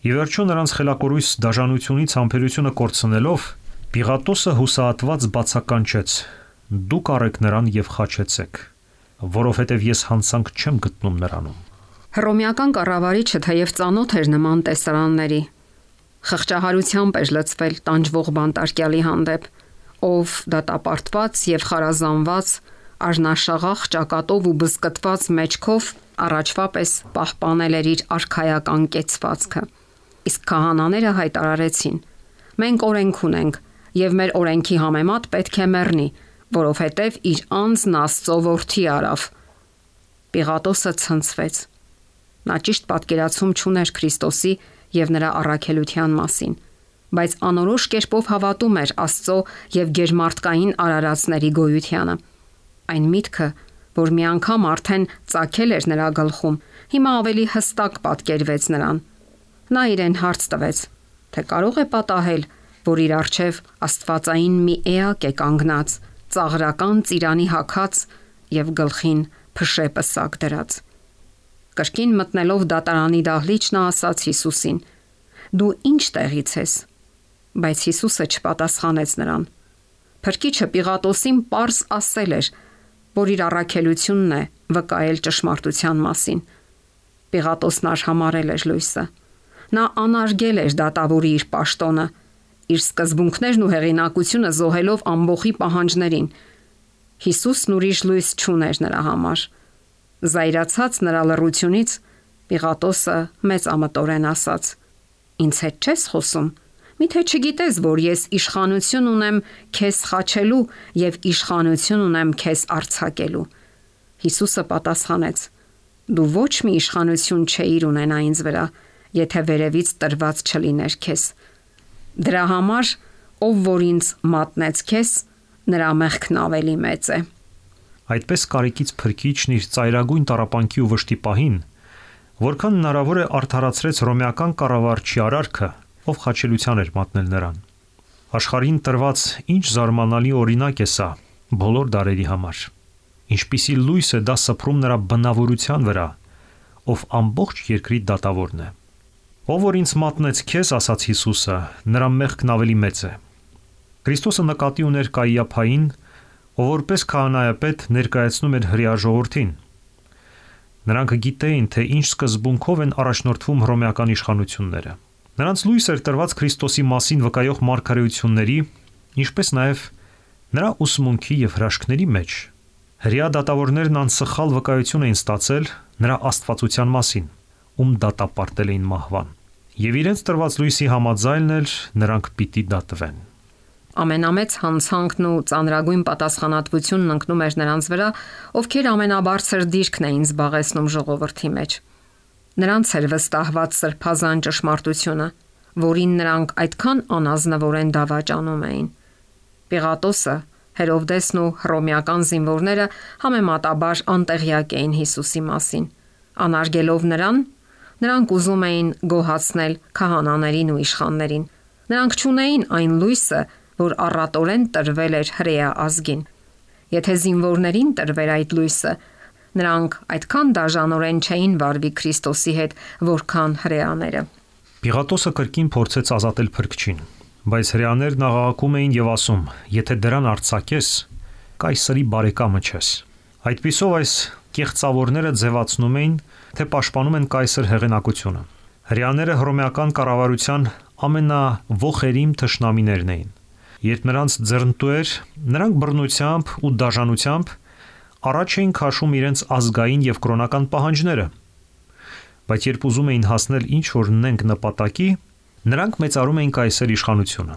Եվ վերջո նրանց խելակորույս դաժանությունից համբերությունը կորցնելով, Պիղատոսը հուսահատված բացականչեց. «Դուք առեք նրան եւ խաչեցեք, որովհետեւ ես հանցանք չեմ գտնում նրանում»։ Հռոմեական կառավարիչը թեև ծանոթ էր նման տեսարանների, խղճահարությամբ էր լցվել տանջվող բանտարկյալի հանդեպ, ով դատապարտված եւ խարազանված արժանաշաղախ ճակատով ու բզկտված մեջքով առաջվա պես պահպանել էր իր արքայական կեցվածքը։ Իսկ քահանաները հայտարարեցին. մենք օրենք ունենք եւ մեր օրենքի համեմատ պետք է մեռնի, որովհետեւ իր անձն Աստծո որդի արավ։ Պիղատոսը ցնցվեց։ Նա ճիշտ պատկերացում չուներ Քրիստոսի եւ նրա առաքելության մասին, բայց անորոշ կերպով հավատում էր Աստծո եւ գերմարտկային արարածների գոյությանը։ Այն միտքը, որ մի անգամ արդեն ծագել էր նրա գլխում, հիմա ավելի հստակ պատկերվեց նրան։ Նա իրեն հարց տվեց, թե կարող է պատահել, որ իր առջև աստվածային մի էակ է կանգնած, ծաղրական ծիրանի հագած եւ գլխին փշե պսակ դրած։ Կրկին մտնելով դատարանի դահլիճ նա ասաց Հիսուսին. «Դու ինչ տեղից ես»։ Բայց Հիսուսը չպատասխանեց նրան։ Փրկիչը Պիղատոսին պարզ ասել էր, որ իր առաքելությունն է վկայել ճշմարտության մասին։ Պիղատոսն արհամարել էր լույսը։ Նա անարգել էր դատավորի իր պաշտոնը, իր սկզբունքներն ու հեղինակությունը զոհելով ամբոխի պահանջներին։ Հիսուսն ուրիշ լույս չուներ նրա համար։ Զայրացած նրա լռությունից Պիղատոսը մեծամտորեն ասաց. «Ինձ հետ չես խոսում։ Միթե չգիտես, որ ես իշխանություն ունեմ քեզ խաչելու եւ իշխանություն ունեմ քեզ արձակելու»։ Հիսուսը պատասխանեց. «Դու ոչ մի իշխանություն չէիր ունենա ինձ վրա, եթե վերևից տրված չլիներ քեզ։ Դրա համար, ով որ ինձ մատնեց քեզ, նրա մեղքն ավելի մեծ է»։ Այդպես կարիքից Փրկիչն իր ծայրագույն տառապանքի ու վշտի պահին, որքան հնարավոր է արդարացրեց հռոմեական կառավարչի արարքը, ով խաչելության էր մատնել նրան։ Աշխարհին տրված ինչ զարմանալի օրինակ է սա բոլոր դարերի համար։ Ինչպիսի լույս է դա սփռում նրա բնավորության վրա, ով ամբողջ երկրի դատավորն է։ Ով որ ինձ մատնեց քեզ, ասաց Հիսուսը, նրա մեղքն ավելի մեծ է։ Քրիստոսը նկատի ուներ Կայիափային, ով որպես քահանայապետ ներկայացնում էր հրեա ժողովրդին։ Նրանք գիտեին, թե ինչ սկզբունքով են առաջնորդվում հռոմեական իշխանությունները։ Նրանց լույս էր տրված Քրիստոսի մասին վկայող մարգարեությունների, ինչպես նաև նրա ուսմունքի եւ հրաշքների մեջ։ Հրեա դատավորներն անսխալ վկայություն էին ստացել նրա աստվածության մասին, ում դատապարտել էին մահվան։ Եվ իրենց տրված լույսի համաձայնն էլ նրանք պիտի դատվեն։ Ամենամեծ հանցանքն ու ծանրագույն պատասխանատվությունն ընկնում էր նրանց վրա, ովքեր ամենաբարձր դիրքն էին զբաղեցնում ժողովրդի մեջ։ Նրանց էր վստահված սրբազան ճշմարտությունը, որին նրանք այդքան անազնվորեն դավաճանում էին։ Պիղատոսը, Հերովդեսն ու հռոմեական զինվորները համեմատաբար անտեղյակ էին Հիսուսի մասին։ Անարգելով նրան, նրանք ուզում էին գոհացնել քահանաներին ու իշխաններին։ Նրանք չունեին այն լույսը, որ առատորեն տրվել էր հրեա ազգին։ Եթե զինվորներին տրվեր այդ լույսը, նրանք այդքան դաժանորեն չէին վարվի Քրիստոսի հետ, որքան հրեաները։ Պիղատոսը կրկին փորձեց ազատել Փրկչին, բայց հրեաներն աղաղակում էին եւ ասում. «Եթե դրան արձակես, կայսրի բարեկամը չես»։ Այդպիսով այս կեղծավորները ձևացնում էին, թե պաշտպանում են կայսր հեղինակությունը։ Հրեաները հռոմեական կառավարության ամենաոխերիմ թշնամիներն էին։ Երբ նրանց ձեռնտու էր, նրանք բռնությամբ ու դաժանությամբ առաջ էին քաշում իրենց ազգային եւ կրոնական պահանջները։ Բայց երբ ուզում էին հասնել ինչ որ նենք նպատակի, նրանք մեծարում էին կայսեր իշխանությունը։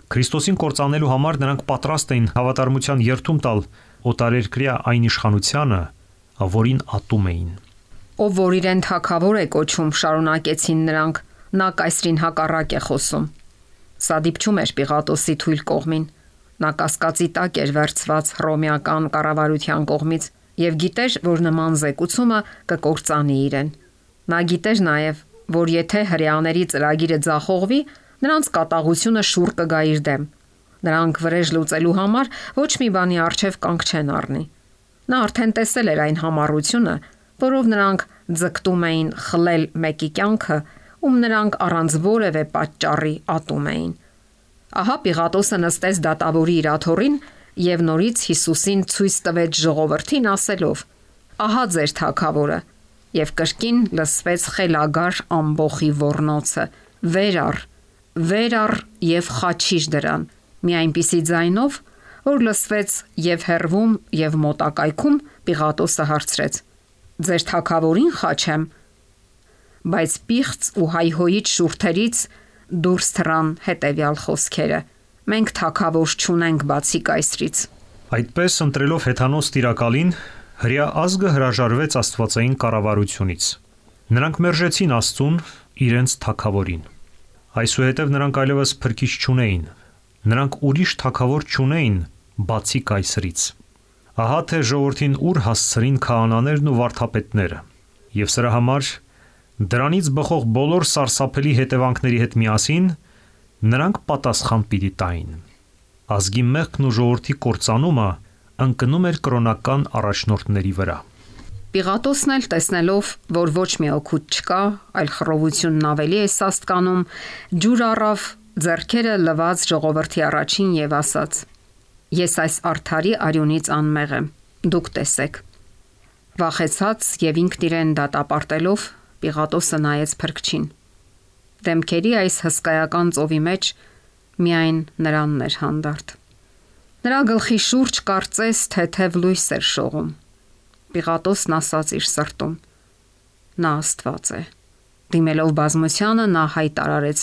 Քրիստոսին կործանելու համար նրանք պատրաստ էին հավատարմության երթում տալ օտարերկրյա այն իշխանությանը, որին ատում էին։ Ով որ իրեն թագավոր է կոչում, շարունակեցին նրանք, նա կայսրին հակառակ է խոսում։ Սա դիպչում էր Պիղատոսի թույլ կողմին։ Նա կասկածի տակ էր վերցված հռոմեական կառավարության կողմից եւ գիտեր, որ նման զեկուցումը կկործանի իրեն։ Նա գիտեր նաեւ, որ եթե հրեաների ծրագիրը ձախողվի, նրանց կատաղությունը շուռ կգա իր դեմ։ Նրանք վրեժ լուծելու համար ոչ մի բանի առջև կանգ չեն առնի։ Նա արդեն տեսել էր այն համառությունը, որով նրանք ձգտում էին խլել մեկի կյանքը, ում նրանք առանց որևէ պատճառի ատում էին։ Ահա Պիղատոսը նստեց դատավորի իր աթոռին եւ նորից Հիսուսին ցույց տվեց ժողովրդին ասելով. «Ահա ձեր թագավորը»։ Եվ կրկին լսվեց խելագար ամբոխի ոռնոցը. «Վեր առ եւ խաչիր դրան»։ Մի այնպիսի ձայնով, Որ լսվեց եւ հեռվում եւ մոտակայքում, Պիղատոսը հարցրեց. «Ձեր թագավորին խաչեմ»։ Բայց պիղծ ու հայհոյիչ շուրթերից դուրս թռան հետևյալ խոսքերը. «Մենք թագավոր չունենք բացի կայսրից»։ Այդպես ընտրելով հեթանոս տիրակալին, հրեա ազգը հրաժարվեց աստվածային կառավարությունից։ Նրանք մերժեցին Աստծուն, իրենց թագավորին։ Այսուհետև նրանք այլևս փրկիչ չունեին։ Նրանք ուրիշ թագավոր չունեին բացի կայսրից։ Ահա թե ժողովրդին ուր հասցրին քահանաներն ու վարդապետները։ Եվ սրա համար դրանից բխող բոլոր սարսափելի հետևանքների հետ միասին նրանք պատասխան պիտի տային։ Ազգի մեղքն ու ժողովրդի կործանումը ընկնում էր կրոնական առաջնորդների վրա։ Պիղատոսն էլ տեսնելով, որ ոչ մի օգուտ չկա, այլ խռովությունն ավելի է սաստկանում, ջուր առավ ձեռքերը լված ժողովրդի առաջին եւ ասաց. «Ես այս արդարի արյունից անմեղ եմ, դուք տեսեք»։ Վախեցած եւ ինքն իրեն դատապարտելով, Պիղատոսը նայեց փրկչին։ Դեմքերի այս հսկայական ծովի մեջ միայն նրանն էր հանդարտ։ Նրա գլխի շուրջ կարծես թեթև լույս էր շողում։ Պիղատոսն ասաց իր սրտում. «Նա Աստված է»։ Դիմելով բազմությանը նա հայտարարեց.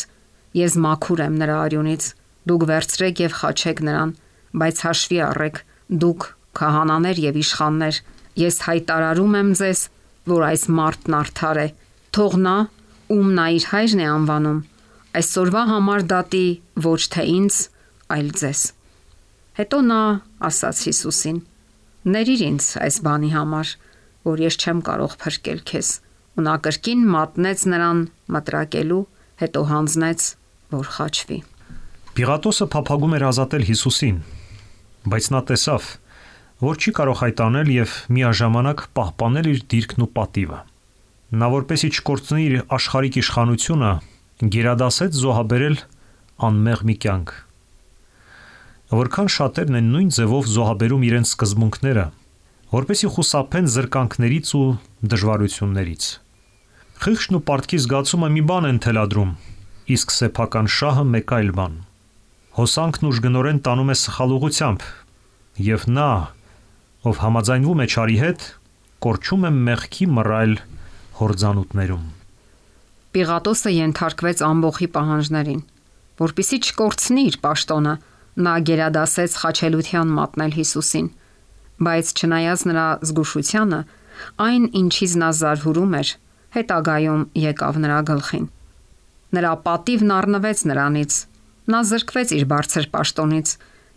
«Ես մաքուր եմ նրա արյունից, դուք վերցրեք եւ խաչեք նրան, բայց հաշվի առեք, դուք քահանաներ եւ իշխաններ, ես հայտարարում եմ ձեզ, որ այս մարդն արդար է, թող նա, ում նա իր հայրն է անվանում, այսօրվա համար դատի ոչ թե ինձ, այլ ձեզ»։ Հետո նա ասաց Հիսուսին. «Ներիր ինձ այս բանի համար, որ ես չեմ կարող փրկել քեզ»։ Ու նա կրկին մատնեց նրան մտրակելու, հետո հանձնեց, որ խաչվի։ Պիղատոսը փափագում էր ազատել Հիսուսին, բայց նա տեսավ, որ չի կարող այդ անել եւ միաժամանակ պահպանել իր դիրքն ու պատիվը։ Նա որպեսի չկորցնի իր աշխարհիկ իշխանությունը, գերադասեց զոհաբերել անմեղ մի կյանք։ Որքան շատերն են նույն ձևով զոհաբերում իրենց սկզբունքները, որպեսի խուսափեն զրկանքներից ու դժվարություններից։ Խիղճն ու պարտքի զգացումը մի բան են թելադրում, իսկ սեփական շահը մեկ այլ բան։ Հոսանքն ուժգնորեն տանում է սխալ ուղղությամբ, եւ նա, ով համաձայնվում է չարի հետ, կորչում է մեղքի մռայլ հորձանուտներում։ Պիղատոսը ենթարկվեց ամբոխի պահանջներին, որpիսի չկորցնի իր պաշտոնը, նա գերադասեց խաչելության մատնել Հիսուսին, բայց չնայած նրա զգուշությանը, այն ինչից նա զարհուրում էր, հետագայում եկավ նրա գլխին։ Նրա պատիվն առնվեց նրանից, նա զրկվեց իր բարձր պաշտոնից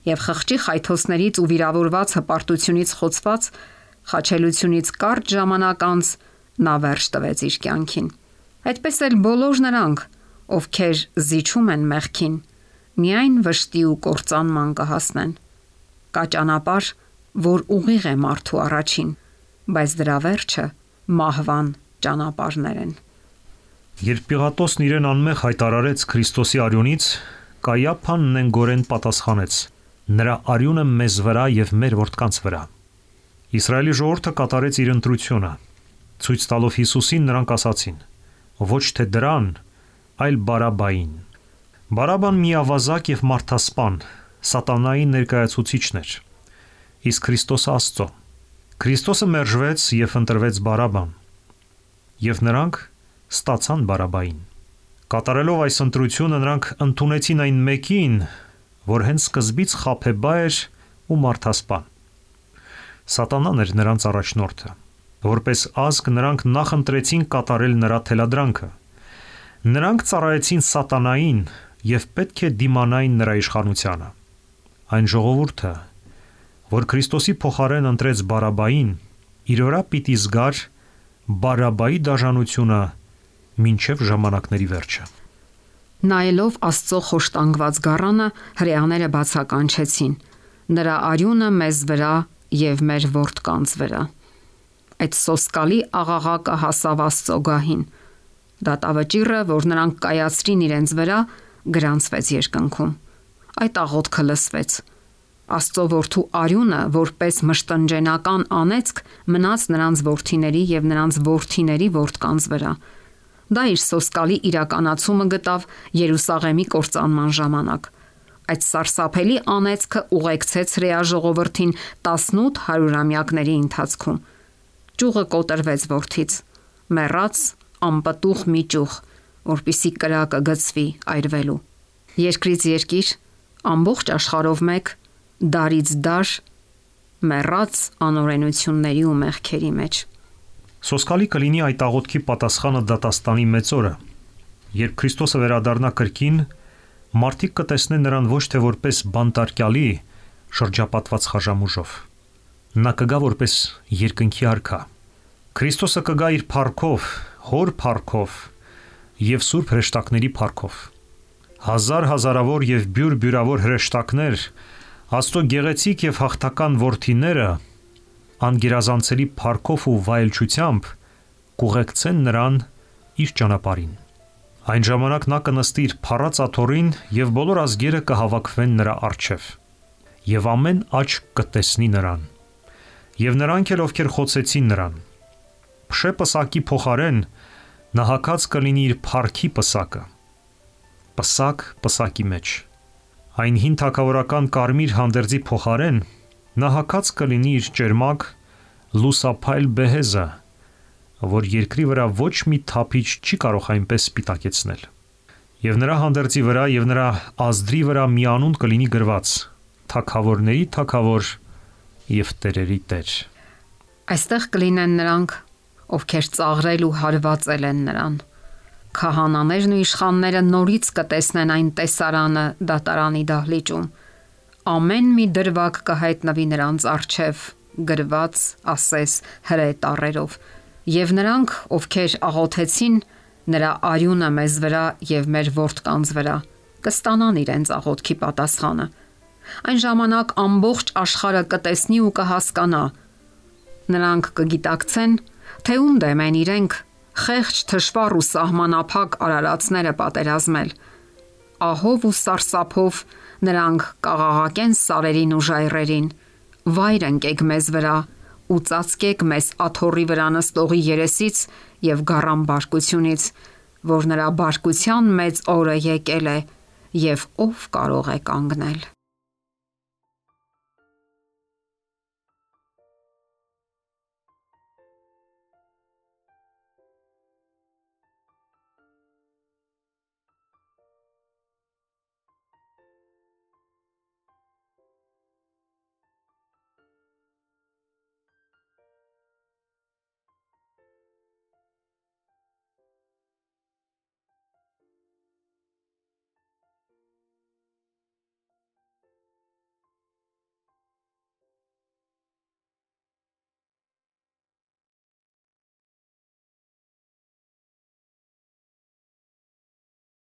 եւ խղճի խայթոցներից ու վիրավորված հպարտությունից խոցված խաչելությունից կարճ ժամանակ անց նա վերջ տվեց իր կյանքին։ Այդպես էլ բոլոր նրանք, ովքեր զիջում են մեղքին, միայն վշտի ու կործանման կհասնեն։ Կա ճանապարհ, որ ուղիղ է մարդու առաջին, բայց դրա վերջը մահվան ճանապարհներ են։ Երբ Պիղատոսն իրեն անմեղ հայտարարեց Քրիստոսի արյունից, Կայափան նենգորեն պատասխանեց. «Նրա արյունը մեզ վրա եւ մեր որդկանց վրա»։ Իսրայելի ժողովուրդը կատարեց իր ընտրությունը։ Ցույց տալով Հիսուսին, նրանք ասացին. «Ոչ թե դրան, այլ Բարաբային»։ Բարաբան միավազակ եւ մարդասպան, սատանայի ներկայացուցիչն էր։ Իսկ Քրիստոսը Աստծո։ Քրիստոսը մերժվեց եւ ընտրվեց Բարաբան։ Եվ նրանք ստացան Բարաբային։ Կատարելով այս ընտրությունը նրանք ընդունեցին այն մեկին, որ հենց սկզբից խաբեբա էր ու մարդասպան։ Սատանան էր նրանց առաջնորդը։ Որպես ազգ նրանք նախընտրեցին կատարել նրա թելադրանքը։ Նրանք ծառայեցին սատանային եւ պետք է դիմանային նրա իշխանությանը։ Այն ժողովուրդը, որ Քրիստոսի փոխարեն ընտրեց Բարաբային, իր վրա պիտի զգար Բարաբայի դաժանությունը մինչև ժամանակների վերջը։ Նայելով Աստծո խոշտանգված գառանը, հրեաները բացականչեցին. «Նրա արյունը մեզ վրա եւ մեր որդկանց վրա»։ Այդ սոսկալի աղաղակը հասավ Աստծո գահին։ Դատավճիռը, որ նրանք կայացրին իրենց վրա, գրանցվեց երկնքում։ Այդ աղոթքը լսվեց։ Աստծո որդու արյունը, որպես մշտնջենական անեծք, մնաց նրանց որդիների եւ նրանց որդիների որդկանց վրա։ Դա իր սոսկալի իրականացումը գտավ Երուսաղեմի կործանման ժամանակ։ Այդ սարսափելի անեծքը ուղեկցեց հրեա ժողովրդին 18 հարյուրամյակների ընթացքում։ Ճյուղը կոտրվեց որդից, մեռած անպտուղ մի ճյուղ, որպիսի կրակը գցվի այրվելու։ Երկրից երկիր, ամբողջ աշխարհով մեկ, դարից դար, մեռած անօրենությունների ու մեղքերի մեջ։ Սոսկալի կլինի այդ աղոթքի պատասխանը դատաստանի մեծ օրը, երբ Քրիստոսը վերադառնա կրկին, մարդիկ կտեսնեն նրան ոչ թե որպես բանտարկյալի շրջապատված խաժամուժով։ Նա կգա որպես երկնքի արքա։ Քրիստոսը կգա իր փառքով, հոր փառքով եւ սուրբ հրեշտակների փառքով։ Հազարավոր եւ բյուրբյուրավոր հրեշտակներ, Աստծո գեղեցիկ եւ հաղթական որդիները անգերազանցելի փառքով ու վայելչությամբ կուղեկցեն նրան իր ճանապարհին։ Այն ժամանակ նա կնստի իր փառած աթոռին եւ բոլոր ազգերը կհավաքվեն նրա առջև։ Եվ ամեն աչք կտեսնի նրան։ Եվ նրանք էլ ովքեր խոցեցին նրան։ Փշե պսակի փոխարեն նա հագած կլինի իր փառքի պսակը։ Պսակ պսակի մեջ։ Այն հին թագավորական կարմիր հանդերձի փոխարեն նա հագած կլինի իր ճերմակ լուսափայլ բեհեզը, որ երկրի վրա ոչ մի թափիչ չի կարող այնպես սպիտակեցնել։ Եվ նրա հանդերձի վրա եւ նրա ազդրի վրա մի անուն կլինի գրված. Թագավորների թագավոր եւ տերերի տեր։ Այստեղ կլինեն նրանք, ովքեր ծաղրել ու հարվածել են նրան։ Քահանաներն ու իշխանները նորից կտեսնեն այն տեսարանը դատարանի դահլիճում։ Ամեն մի դրվագ կհայտնվի նրանց առջև, գրված, ասես հրե տառերով։ Եվ նրանք, ովքեր աղոթեցին, նրա արյունը մեզ վրա եւ մեր որդկանց վրա, կստանան իրենց աղոթքի պատասխանը։ Այն ժամանակ ամբողջ աշխարհը կտեսնի ու կհասկանա։ Նրանք կգիտակցեն, թե ում դեմ են իրենք խեղճ, թշվառ ու սահմանափակ արարածները պատերազմել։ Ահով ու սարսափով նրանք կաղաղակեն սարերին ու ժայռերին. վայր ընկեք մեզ վրա ու ծածկեք մեզ աթոռի վրա նստողի երեսից եւ գառան բարկությունից, որ նրա բարկության մեծ օրը եկել է եւ ով կարող է կանգնել։